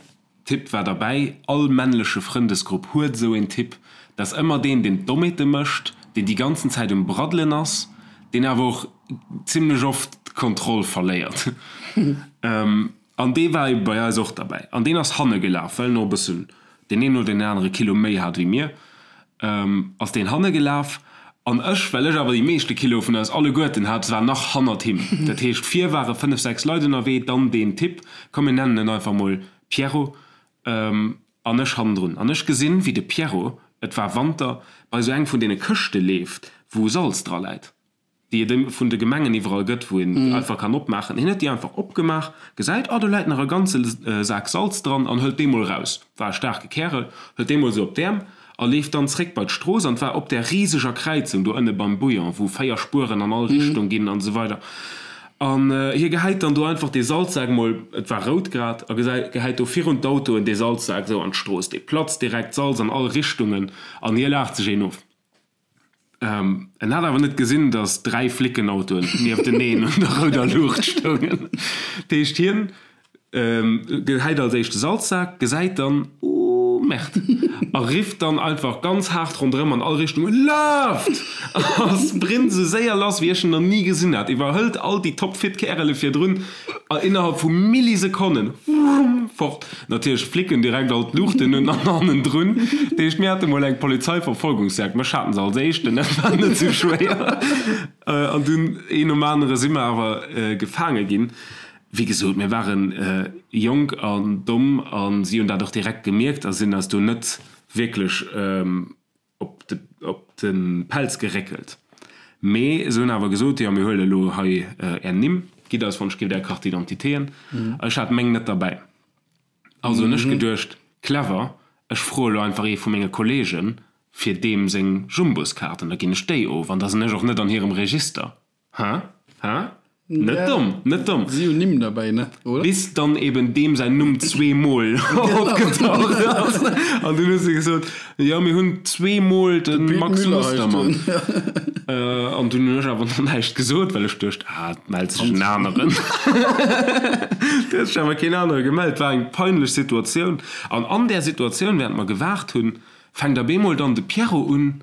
Typ war derbäi. All männleche Frëndesgrupp huet esou een Typ. Dat ass ëmmer deen, deen d'Dommheete mécht, deen déi ganzen Zäit um Braddelen ass, deen awer och zimlech oft d'Kontroll verléiert. An dee war ebe bei eis och derbäi. An deen ass hanne gelaf, well en och e bëssen deen een oder deen anere Kilo méi hat wéi mir, ass deen hanne gelaf. An ech, well ech awer déi meeschte Kiloe vun eis alleguerten hat, war nach hannert him. Dat heescht, vir ware fënnef, sechs Leit ënnerwee, dann deen Typ, komm mir nennen en einfach mol Pierrot, an ech hannendrun. An ech gesinn, wéi de Pierrot, et war Wanter, bei esou eng vun deene Këschte leeft, wou Salz dra läit. déi et vun de Gemengen iwwerall gëtt, wou een einfach kann opmaachen. Hien huet déi einfach opgemaach, gesäit, oh do läit nach e ganze Sak Salz dran an hëlt dee mol raus. War e staarke Kärel, hëlt dee mol esou op d'Äerm a leeft dann zréck bei d'Strooss an et war op där riseger Kräizung do ënne beim Bouillon, wou 4 Spueren an all Richtung ginn an esou weider. An hie gehäit dann do einfach dee Salzsak mol, et war rout grad, a gehäit do virun d'Autoen dee Salzsak esou an d'Strooss. Dee platzt direkt, Salz an all Richtungen an hie laacht sech een of. En hat awer net gesinn, datt 3 Flickenautoen niefteneen un der rouder Luucht stoungen. Dat heescht, hien gehäit als éischt de Salzsak, gesäit dann, Oh Merde! a rifft dann einfach ganz haart ronderëm an all Richtungen, Laaft! A sprint esou séier lass, wéi ech en nach ni gesinn hat, iwwerhëlt all déi topfit Kärele virdrun a innerhalb vu Millisekonnen, wumm, fort. Natierlech flicken direkt all d'Luuchten un an hannendrun. Dat heescht, mir hate mol eng Polizeiverfolgungsjagd. Mech haten se als éischten, dat war net sou schwéier. An dunn een nom anere si mer awer gefaange ginn. Wéi gesot, mir ware jonk an domm a si hunn dat och direkt gemierkt a sinn eis do net wierklech op de op de Pelz geréckelt. Mee se hunn awer gesot, jo mir huele elo hei är Nimm, gitt eis wann ech giff är Carte d'identitéen. Ech hat meng net derbäi. Also hunn ech geduecht, clever, ech froe lo einfach ee vu menge Kollegen fir deem seng Jumbuskaart an da ginn ech déi of an da sinn ech och net an hirem Register. Hä? Hä? Net domm, net domm. Si hunn Nimm derbäi, ne? Oder? Bis dann eben deem säin Numm zweemol opgetaucht ass. An dunn hu se gesot, jo, mir hunn zweemol de Max Mustermann. An dunn hunn ech awer nach näischt gesot, well ech duecht, ah, et mellt sech en aneren. Et huet sech awer keen anere gemellt. War eng peinlech Situatioun. An an där Situatioun, wärend mer gewaart hunn, fänkt op eemol dann de Pierrot un,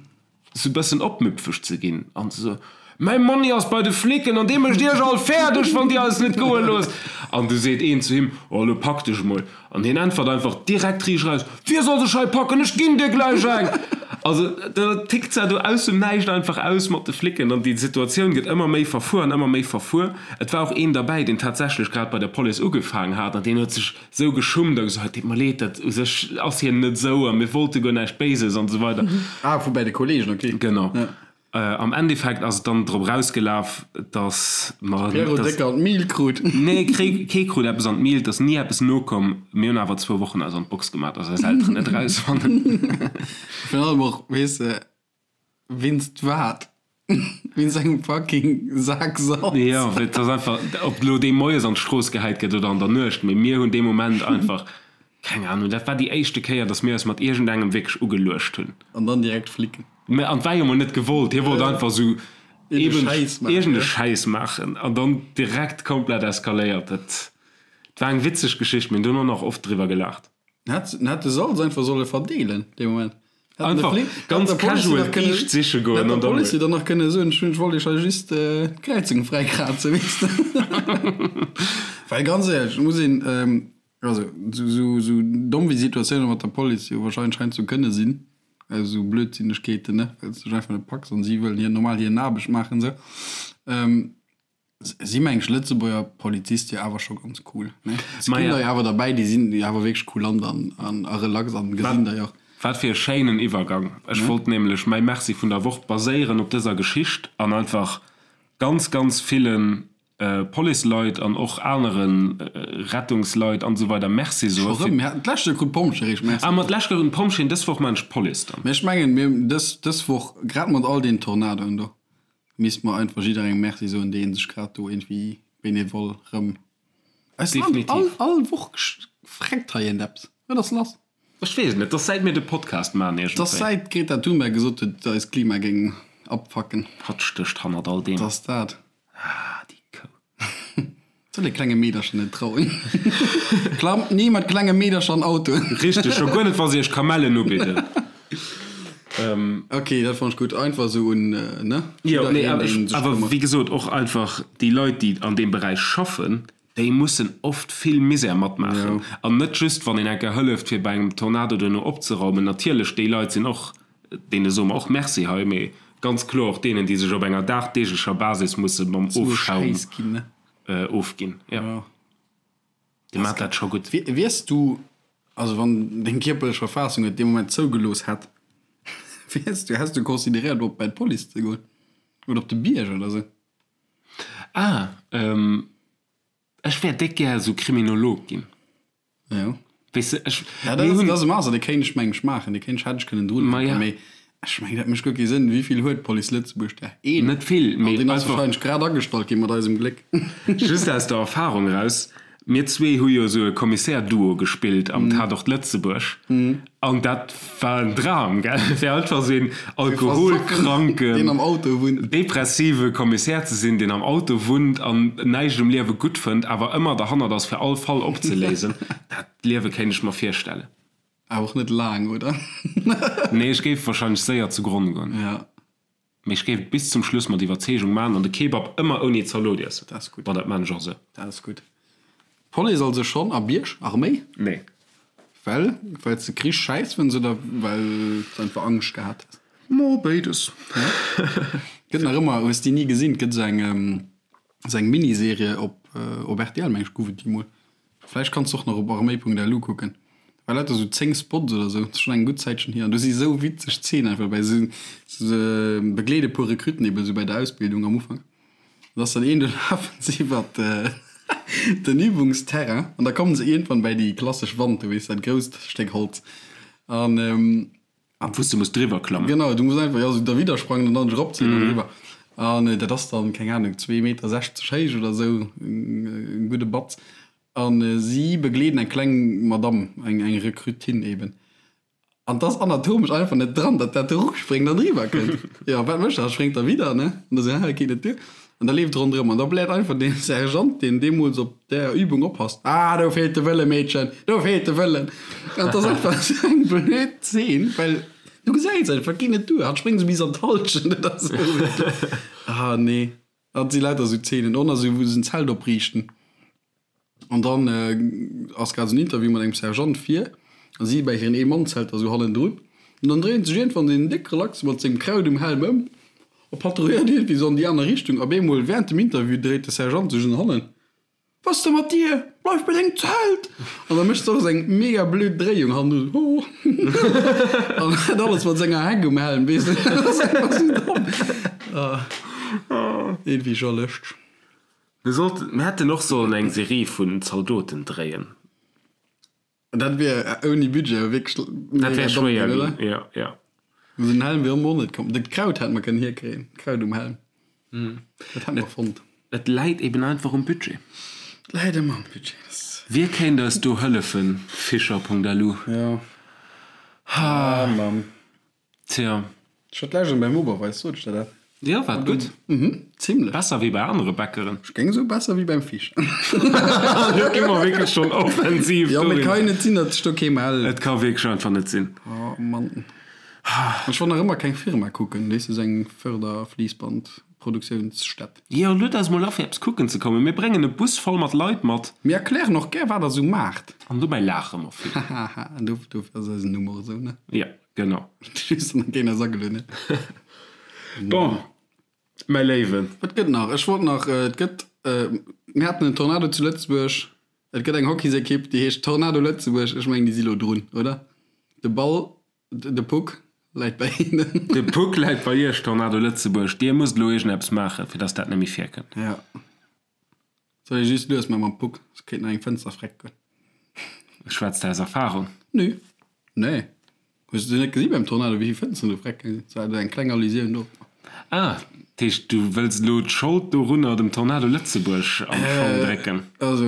sou bëssen opmüpfeg ze ginn an ze soen, Mäi Monni ass bei de Flicken an dee mécht iech all fäerdeg, wann dir eis net goe loosst. An du seet een zu him, Oh, elo pak dech emol. An hien äntwert einfach direkt riicht eraus, Wie soll sech hei packen, ech ginn dir gläich eng! Also da tickt se do aus dem Näischt einfach aus mat de Flicken an déi Situatioun gëtt ëmmer méi verfuer an ëmmer méi verfuer. Et war och een derbäi, deen tatsächlech grad bei der Police ugefaangen hat an deen huet sech sou geschummt a gesot, et deet mer leed, dat u sech ass hien net sou a mir wollte guer näischt Béises an esou weider. Ah, vu bäi de Kollegen, ok. Genau. Am Endeffekt ass et dann drop erausgelaf, dass mer. Pierrot déck an d'Mil krut. Nee, kee krut eppes an d'Mil, et ass ni eppes nokomm. Mir hunn awer zwou Wochen eis an d'Box gemaach, dass eis Elteren net erausfannen. Virun allem och, weess de, wéinst wat? Wéinst engem fucking Sak Salz. Jo, et ass einfach, ob elo dee moies an d'Strooss gehäit gëtt oder an der Nuecht, mee mir hunn dee Moment einfach, keng Ahnung, dat war déi éischte Kéier, dass mir eis mat iergendengem wierklech ugeluecht hunn. An dann direkt flicken. Mä an et war jo mol net gewollt, hie wollt einfach esou eben iergend e Schäiss maachen an dann direkt komplett eskaléiert. Dat war eng witzeg Geschicht, mir hunn dono nach oft driwwer gelaacht. En hätt de Salz einfach solle verdeelen dee Moment. Einfach ganz casual d'Kiischt siche goen an dann. Hätt der Police dann nach kënne soen, ech wollt iech hei just d'Kräizung fräikrazen, weess de. Well ganz éierlech, et muss een, also esou domm wéi Situatioune mat der Police jo wahrscheinlech heiansdo kënne sinn, esou Blödsinnegkeeten, ne, well s de dech einfach net packs an si wëllen hir normal hir Aarbecht maachen esou. Si meng ech Lëtzebuerger Polizist jo awer scho ganz cool ne? Et ginn der jo awer derbäi déi sinn jo awer wierklech kulant an an a relax an gesinn der jo och. Wat fir e schéinen Iwwergang. Ech wollt nämlech mäi Merci vun der Woch baséieren op dëser Geschicht an einfach ganz, ganz ville Policeleit an och anere Rettungsleit an esou weider Merci soe Scho rëm? Mir haten d'lescht Joer krut d'Pompjeeë réischt Merci Ah, ma d'lescht Joer hunn d'Pompjeeën, dës Woch maan ech d'Police dann. Mee ech mengen mir dës dës Woch grad mat all deenen Tornadoen do. Misst mer einfach jidderengem Merci soen, deen sech grad do iergendwéi bénévol rëm. Eist Land, all, all Woch freckt hei eent eppes. Wat ass lass? Ech weess et net, 't ass säit mir de Podcast maan iergendwéi. 't ass säit d'Greta Thunberg gesot huet, eist Klima géing abfacken. Hatt stécht hannert all deem. 't ass dat. Ah, déi Kou. Soll ee klenge Meedercher net trauen. Klammt ni mat klenge Meedercher an Autoen. Richteg, scho guer net wa se iech Kamellen ubidden. Ok, dat fannt ech gutt. Einfach esou un, ne? Jo, nee, awer wéi gesot, och einfach déi Leit, déi an deem Beräich schaffen, déi mussen oft vill Misär matmaachen. An net just, wann een eng Kéier hëlleft, fir bei engem Tornado duerno opzeraumen. Natierlech, déi Leit sinn och, deene soe mer och Merci hei, mee ganz kloer och deenen, déi sech op enger dagdeeglecher Basis musse mam Ofschaum ofginn. Jo, déi maachen dat scho gutt. Wiers du, also wann deng kierperlech Verfassung et dee Moment zougelooss hätt, wiers du, häss du consideréiert op bei d'Police ze goen oder op de Bierg oder sou? Ah, ech wär déck gär esou Kriminolog ginn. Jo. Weess de, ech, Ja, dat mir ass, hunn. dat ass e Master, dee kéint ech meng ech maachen, dee kéint ech, hätt ech kënnen drun Ma hänken, ja. mee ech meng, dat mécht guer kee Sënn. Wéi vill huet d'Police Lëtzebuerg der? Een. Net vill, An mee deen ass einfach. wahrscheinlech grad agestallt ginn, mat eisem Gléck. Just aus der Erfahrung eraus, Mir zwee hu jo esou e Kommissär-Duo gespillt am Tatort Lëtzebuerg an dat war en Dram, gell? Fir einfach esou een alkoholkranken, Deen am Auto wunnt. depressive Kommissär ze sinn, deen am Auto wunnt an näischt um Liewe gutt fënnt, awer ëmmer derhannert ass, fir all Fall opzeléisen. Dat Liewe kéint ech mer virstellen. Awer och net laang, oder? Nee, ech géif warscheinlech séier zu Gronn goen. Ja. Mee ech géif et bis zum Schluss mat Iwwerzeegung maachen an de Kebab ëmmer ouni Zalot iessen. Dat ass gutt. Bon, dat maan ech och esou. Dat ass gutt. Police also schonn a Bierg? Arméi? Nee. Well? Well s de Krich schäiss fënns oder well s einfach Angscht gehat hues? Mo, béides. Gëtt nach ëmmer, hues déi ni gesinn? Et gëtt esou eng, esou eng Miniserie op, op rtl meng ech gouf et déi mol. Vläicht kanns de och nach op arméi.lu kucken. War lauter sou 10 Spots oder sou, ass schon eng gutt Zäitchen hier. An do si sou witzeg Szenen einfach dobäi. Se se begleede puer Recruten eben sou bei der Ausbildung am Ufank. An da ass dann een, do lafen se iwwert den Übungsterrain an da kommen se iergendwann bäi déi klassesch Wand do, weess dat grousst Stéck Holz. An An wou s de muss driwwer klammen. Genau, du muss einfach, jo, sou derwidder sprangen an dann dech eropzéien an eriwwer. An dat ass dann, keng Ahnung, zwee Meter 60 héich oder sou, e gudde Batz. A si begleeden eng kleng Madamm, eng, eng Rekrutin eben. An 't ass anatomesch einfach net dran, datt dat eropspréngt an eriwwer kënnt. Jo, wat mécht dat? Spréngt derwidder, ne? An da sou, Hä, geet net duer. An da leeft ronderëm an da bläert einfach dee Sergeant, deen deemools op där Übung oppasst, Ah, do feelt de Wëlle, Meedchen, do feelt de Wëllen! An et ass einfach esou eng blöd Zeen, well du gesäis einfach, et geet net duer, hatt spréngt esou bis an d'Hallschent oder esou. Ah, nee, dat si lauter esou Zeenen. Och nach esou, wou se en Zelt opriichten. An dann ass grad esou en Interview mat engem Sergeant vir a si bäi hiren Ee-Mann-Zelter esou hannendrun. An dann dréint sech iergendwann deen déck Relaxe mat sengem Kraut um Helm ëm a patrouilléiert iergendwéi esou an déi aner Richtung. Op eemol wärend dem Interview dréit de Sergeant sech un hannen. Was de mat dir? Bleif bei dengem Zelt! An da mécht se och esou eng mega blöd Dréiung hannendrun, ho! An dat alles mat senger Heck um Helm, weess de. Dat ass einfach esou domm. Iergendwéi scho lëschteg. Mir sollten, mir hätten och sollen eng Serie vun Zaldoten dréien. Dat wier ouni Budget wierklech Dat wär schwéier ginn, jo, jo. Esou en Helm wier och net komm. Dat Kraut hätt mer kënnen hierkréien, d'Kraut um Helm. Dat hätt mer fonnt. Et läit eben einfach um Budget. Et läit ëmmer um Budget. Wie kéint eis do hëllefen? Fischer.lu. Jo. Ah Mann. Tja. Ech hat d'lescht beim Oberweis, sot ech der dat? Jo, war et gutt? Mhm, zimlech. Besser wéi bei anere Bäckeren. Ech géing soen, besser wéi beim Fisch. Do gi mer wierklech schonn offensiv. Jo, mee et ka jo net sinn, datt sech do kee mellt. Et ka wierklech einfach net sinn. Oh Mann. Ech wollt nach ëmmer keng Firma kucken, weess de, sou eng Förderfliissbandproduktiounsstätt. Jo, lued eis mol a fir eppes kucken ze kommen. Mir bréngen e Bus voll mat Leit mat. Mir erklären och gär, wat der sou maacht. An dobäi laache mer vill. Hahaha, dofir ass eisen Numm och esou, ne? Jo. Genau. Just nach keen eis agelueden huet. Bon, mäi Léiwen. Wat gëtt nach? Ech wollt nach, et gëtt, mir haten en Tornado zu Lëtzebuerg. Et gëtt eng Hockeysekipp, déi heescht Tornado Lëtzebuerg. Ech mengen, déi si lo drun, oder? De Ball, de Puck läit bei hinnen. De Puck läit bei iech, Tornado Lëtzebuerg. Dir musst elo iergendeppes maachen, fir dass dat net méi virkënnt. Ja. Soll ee just lues man mam Puck, soss kéint nach eng Fënster freck goen. Schwätz de aus Erfahrung? Nö. Nee. Hues de net gesi beim Tornado wéivill Fënsteren do freck gaange sinn? Et war eng kleng Allusioun dorop. Ah, dat heescht du wëlls elo d'Schold dorunner dem Tornado Lëtzebuerg an d'Schong drécken? Also,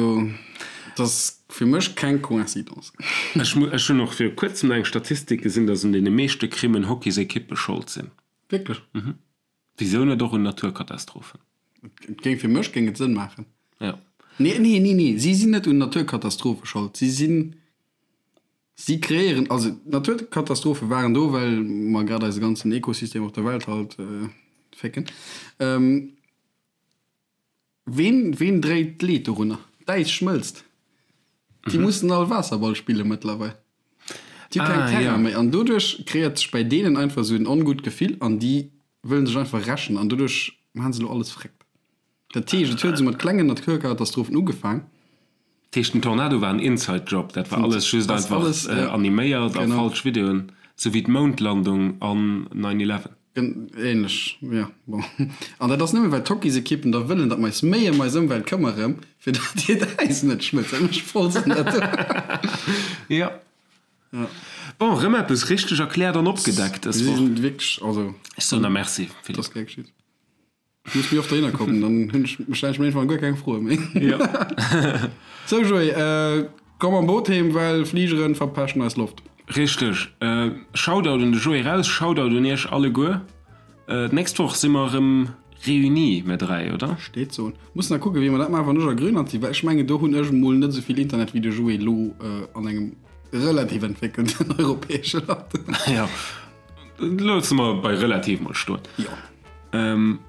et ass fir mech keng Coïncidence. Ech ech hunn och viru kuerzem nach eng Statistik gesinn, datt un deene meeschte Crimmen Hockeysekippe Schold sinn. Wierklech? Mhm. Wisou net och un Naturkatastrophen? Et géing, fir mech géing et Sënn maachen. Jo. Nee, nee, nee, nee, si sinn net un Naturkatastrophe schold. Si sinn, si kreéieren, also d'Naturkatastrophe waren do, well mer grad eise ganzen Ekosystem op der Welt halt fécken. Ween, ween dréit d'Leed dorunner? D'Äis schmëlzt. Déi mussen all Waasserball spille mëttlerweil. Déi hu keng Terrain méi an doduerch kreéiert sech bäi deenen einfach esou en ongutt Gefill an déi wëllen sech einfach rächen an doduerch maachen se elo alles fréckt. Dat heescht, et huet esou mat klengen Naturkatastrophen ugefaang. Dat heescht, den Tornado war en Inside Job, dat war alles just einfach animéiert a falsch Videoen, sou wéi d'Moundlandung an 9/11. Ähnlech, jo, bon. An dat ass nëmmen, well d'Hockeysekippen da wëllen, datt mer eis méi ëm eis Ëmwelt këmmere, fir datt hiert Äis net schmëlzt. Dat mécht voll Sënn, dat do. Jo. Bon, erëm eppes richteg erkläert an opgedeckt dës Woch. Mir sinn wierklech, also. Ech soen der Merci, Philippe. Dat ass gär geschitt. Du muss méi oft dohinner kommen, dann hunn ech, stellen ech mir irgendwann guer keng Froe méi. Jo. Sou Joé, komm mam Boot heem, well Fligeren verpeschen eis Loft. Richteg. Shoutout un de Joé raus, Shoutout un iech alleguer. D'nächst Woch si mer erëm réunis, mir 3, oder? Steet soen. Mussen nach kucken, wéi mer dat maachen, wann ech a Grönland sinn, well ech mengen, do hunn ech emol net esou vill Internet wéi de Joé elo an engem relativ entwéckelten europäesche Land. Jo. Loosse mer bei relativ mol stoen. Jo. Ähm,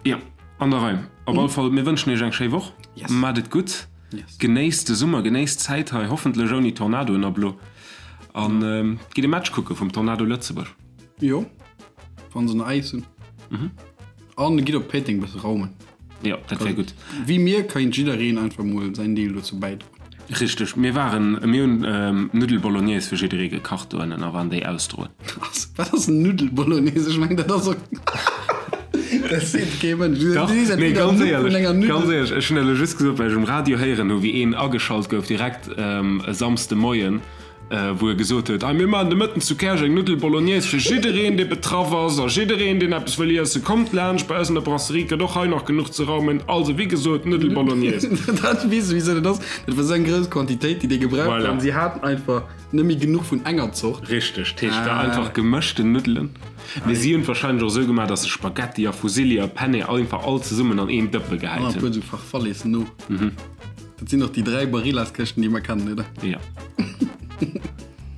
jo, an der Rei. Op alle Fall, mir wënschen iech eng schéi Woch. Yes. Maacht et gutt. Yes. Genéisst de Summer, genéisst d'Zäit hei, hoffentlech ouni Tornadoen ab elo. An ähm, gitt e Match kucke vum Tornado Lëtzebuerg. Jo, wann se nach Äis hunn. An gitt op Péiteng e bësse raumen. Jo, dat wär gutt. Wéi mir kéint jiddereen einfach mol säin Deel dozou bäidroen. Richteg, mir waren, mir hunn Nuddel Bolognese fir jidderee gekacht dohennen a waren déi ausdroen. Wat ass Nuddel Bolognese? Ech mengen dat ass och, dat seet kee Mënsch. Dach, nee, ganz éierlech, ganz éierlech, ech hunn elo just gesot, well ech um Radio héieren hu wéi een ageschalt gouf direkt e Samsde Moien, wou e gesot huet, Hei, mir maachen de Mëtten zu Käerch eng Nuddel Bolognaise fir jiddereen, dee betraff ass a jiddereen, deen eppes wëll iessen. Kommt laanscht, bei eis an der Brasserie gëtt och hei nach genuch ze raumen. Also, wéi gesot, Nuddel Bolognaise. Dat, weess de, wisou dat ass? Dat war esou eng grouss Quantitéit, déi déi gebraucht Voilà. hunn. Si haten einfach net méi genuch vun enger Zort. Richteg, dat heescht, war einfach gemëschten Nuddelen. Mee si hunn et warscheinlech och esou gemaach, datt se Spaghetti a Fusilli a Penne einfach all zesummen an een Dëppe An gehäit e hunn. puer esou Farfalles no. Dat sinn och déi 3 Barillas-Këschten, déi mer kennen, oder? Jo.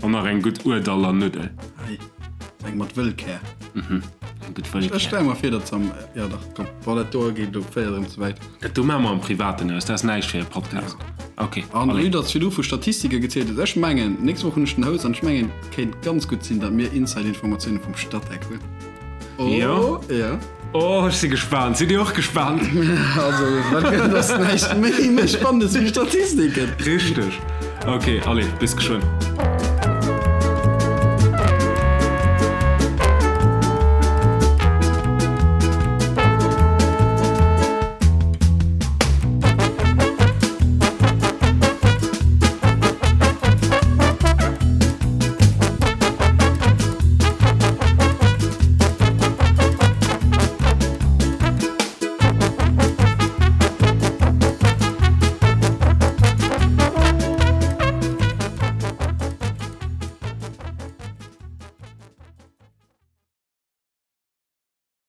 An nach eng gutt Urdaller Nuddel. Ei, eng mat Wëllkär. Mhm, eng gutt Wëllkär. Ech stelle mer vir, datt se am, jo dach, komm, bon, dat do geet elo féiert erëm ze wäit. Dat do maache mer am Privaten aus, dat ass näischt fir e Podcast. Ok, An allez. vue datt s virdru vu Statistike gezielt hues, ech mengen, nächst Woch hunn ech den Houss an ech mengen, et kéint ganz gutt sinn, datt mir Inside-Informatioune vum Statec hunn. Jo. Oh, jo. Oh, ech si gespaant. Sidd Dir och gespaant? Also, wat gëtt, ass näischt méi méi Spannendes wéi Statistiken. Richteg. Ok, allez, bis geschwënn.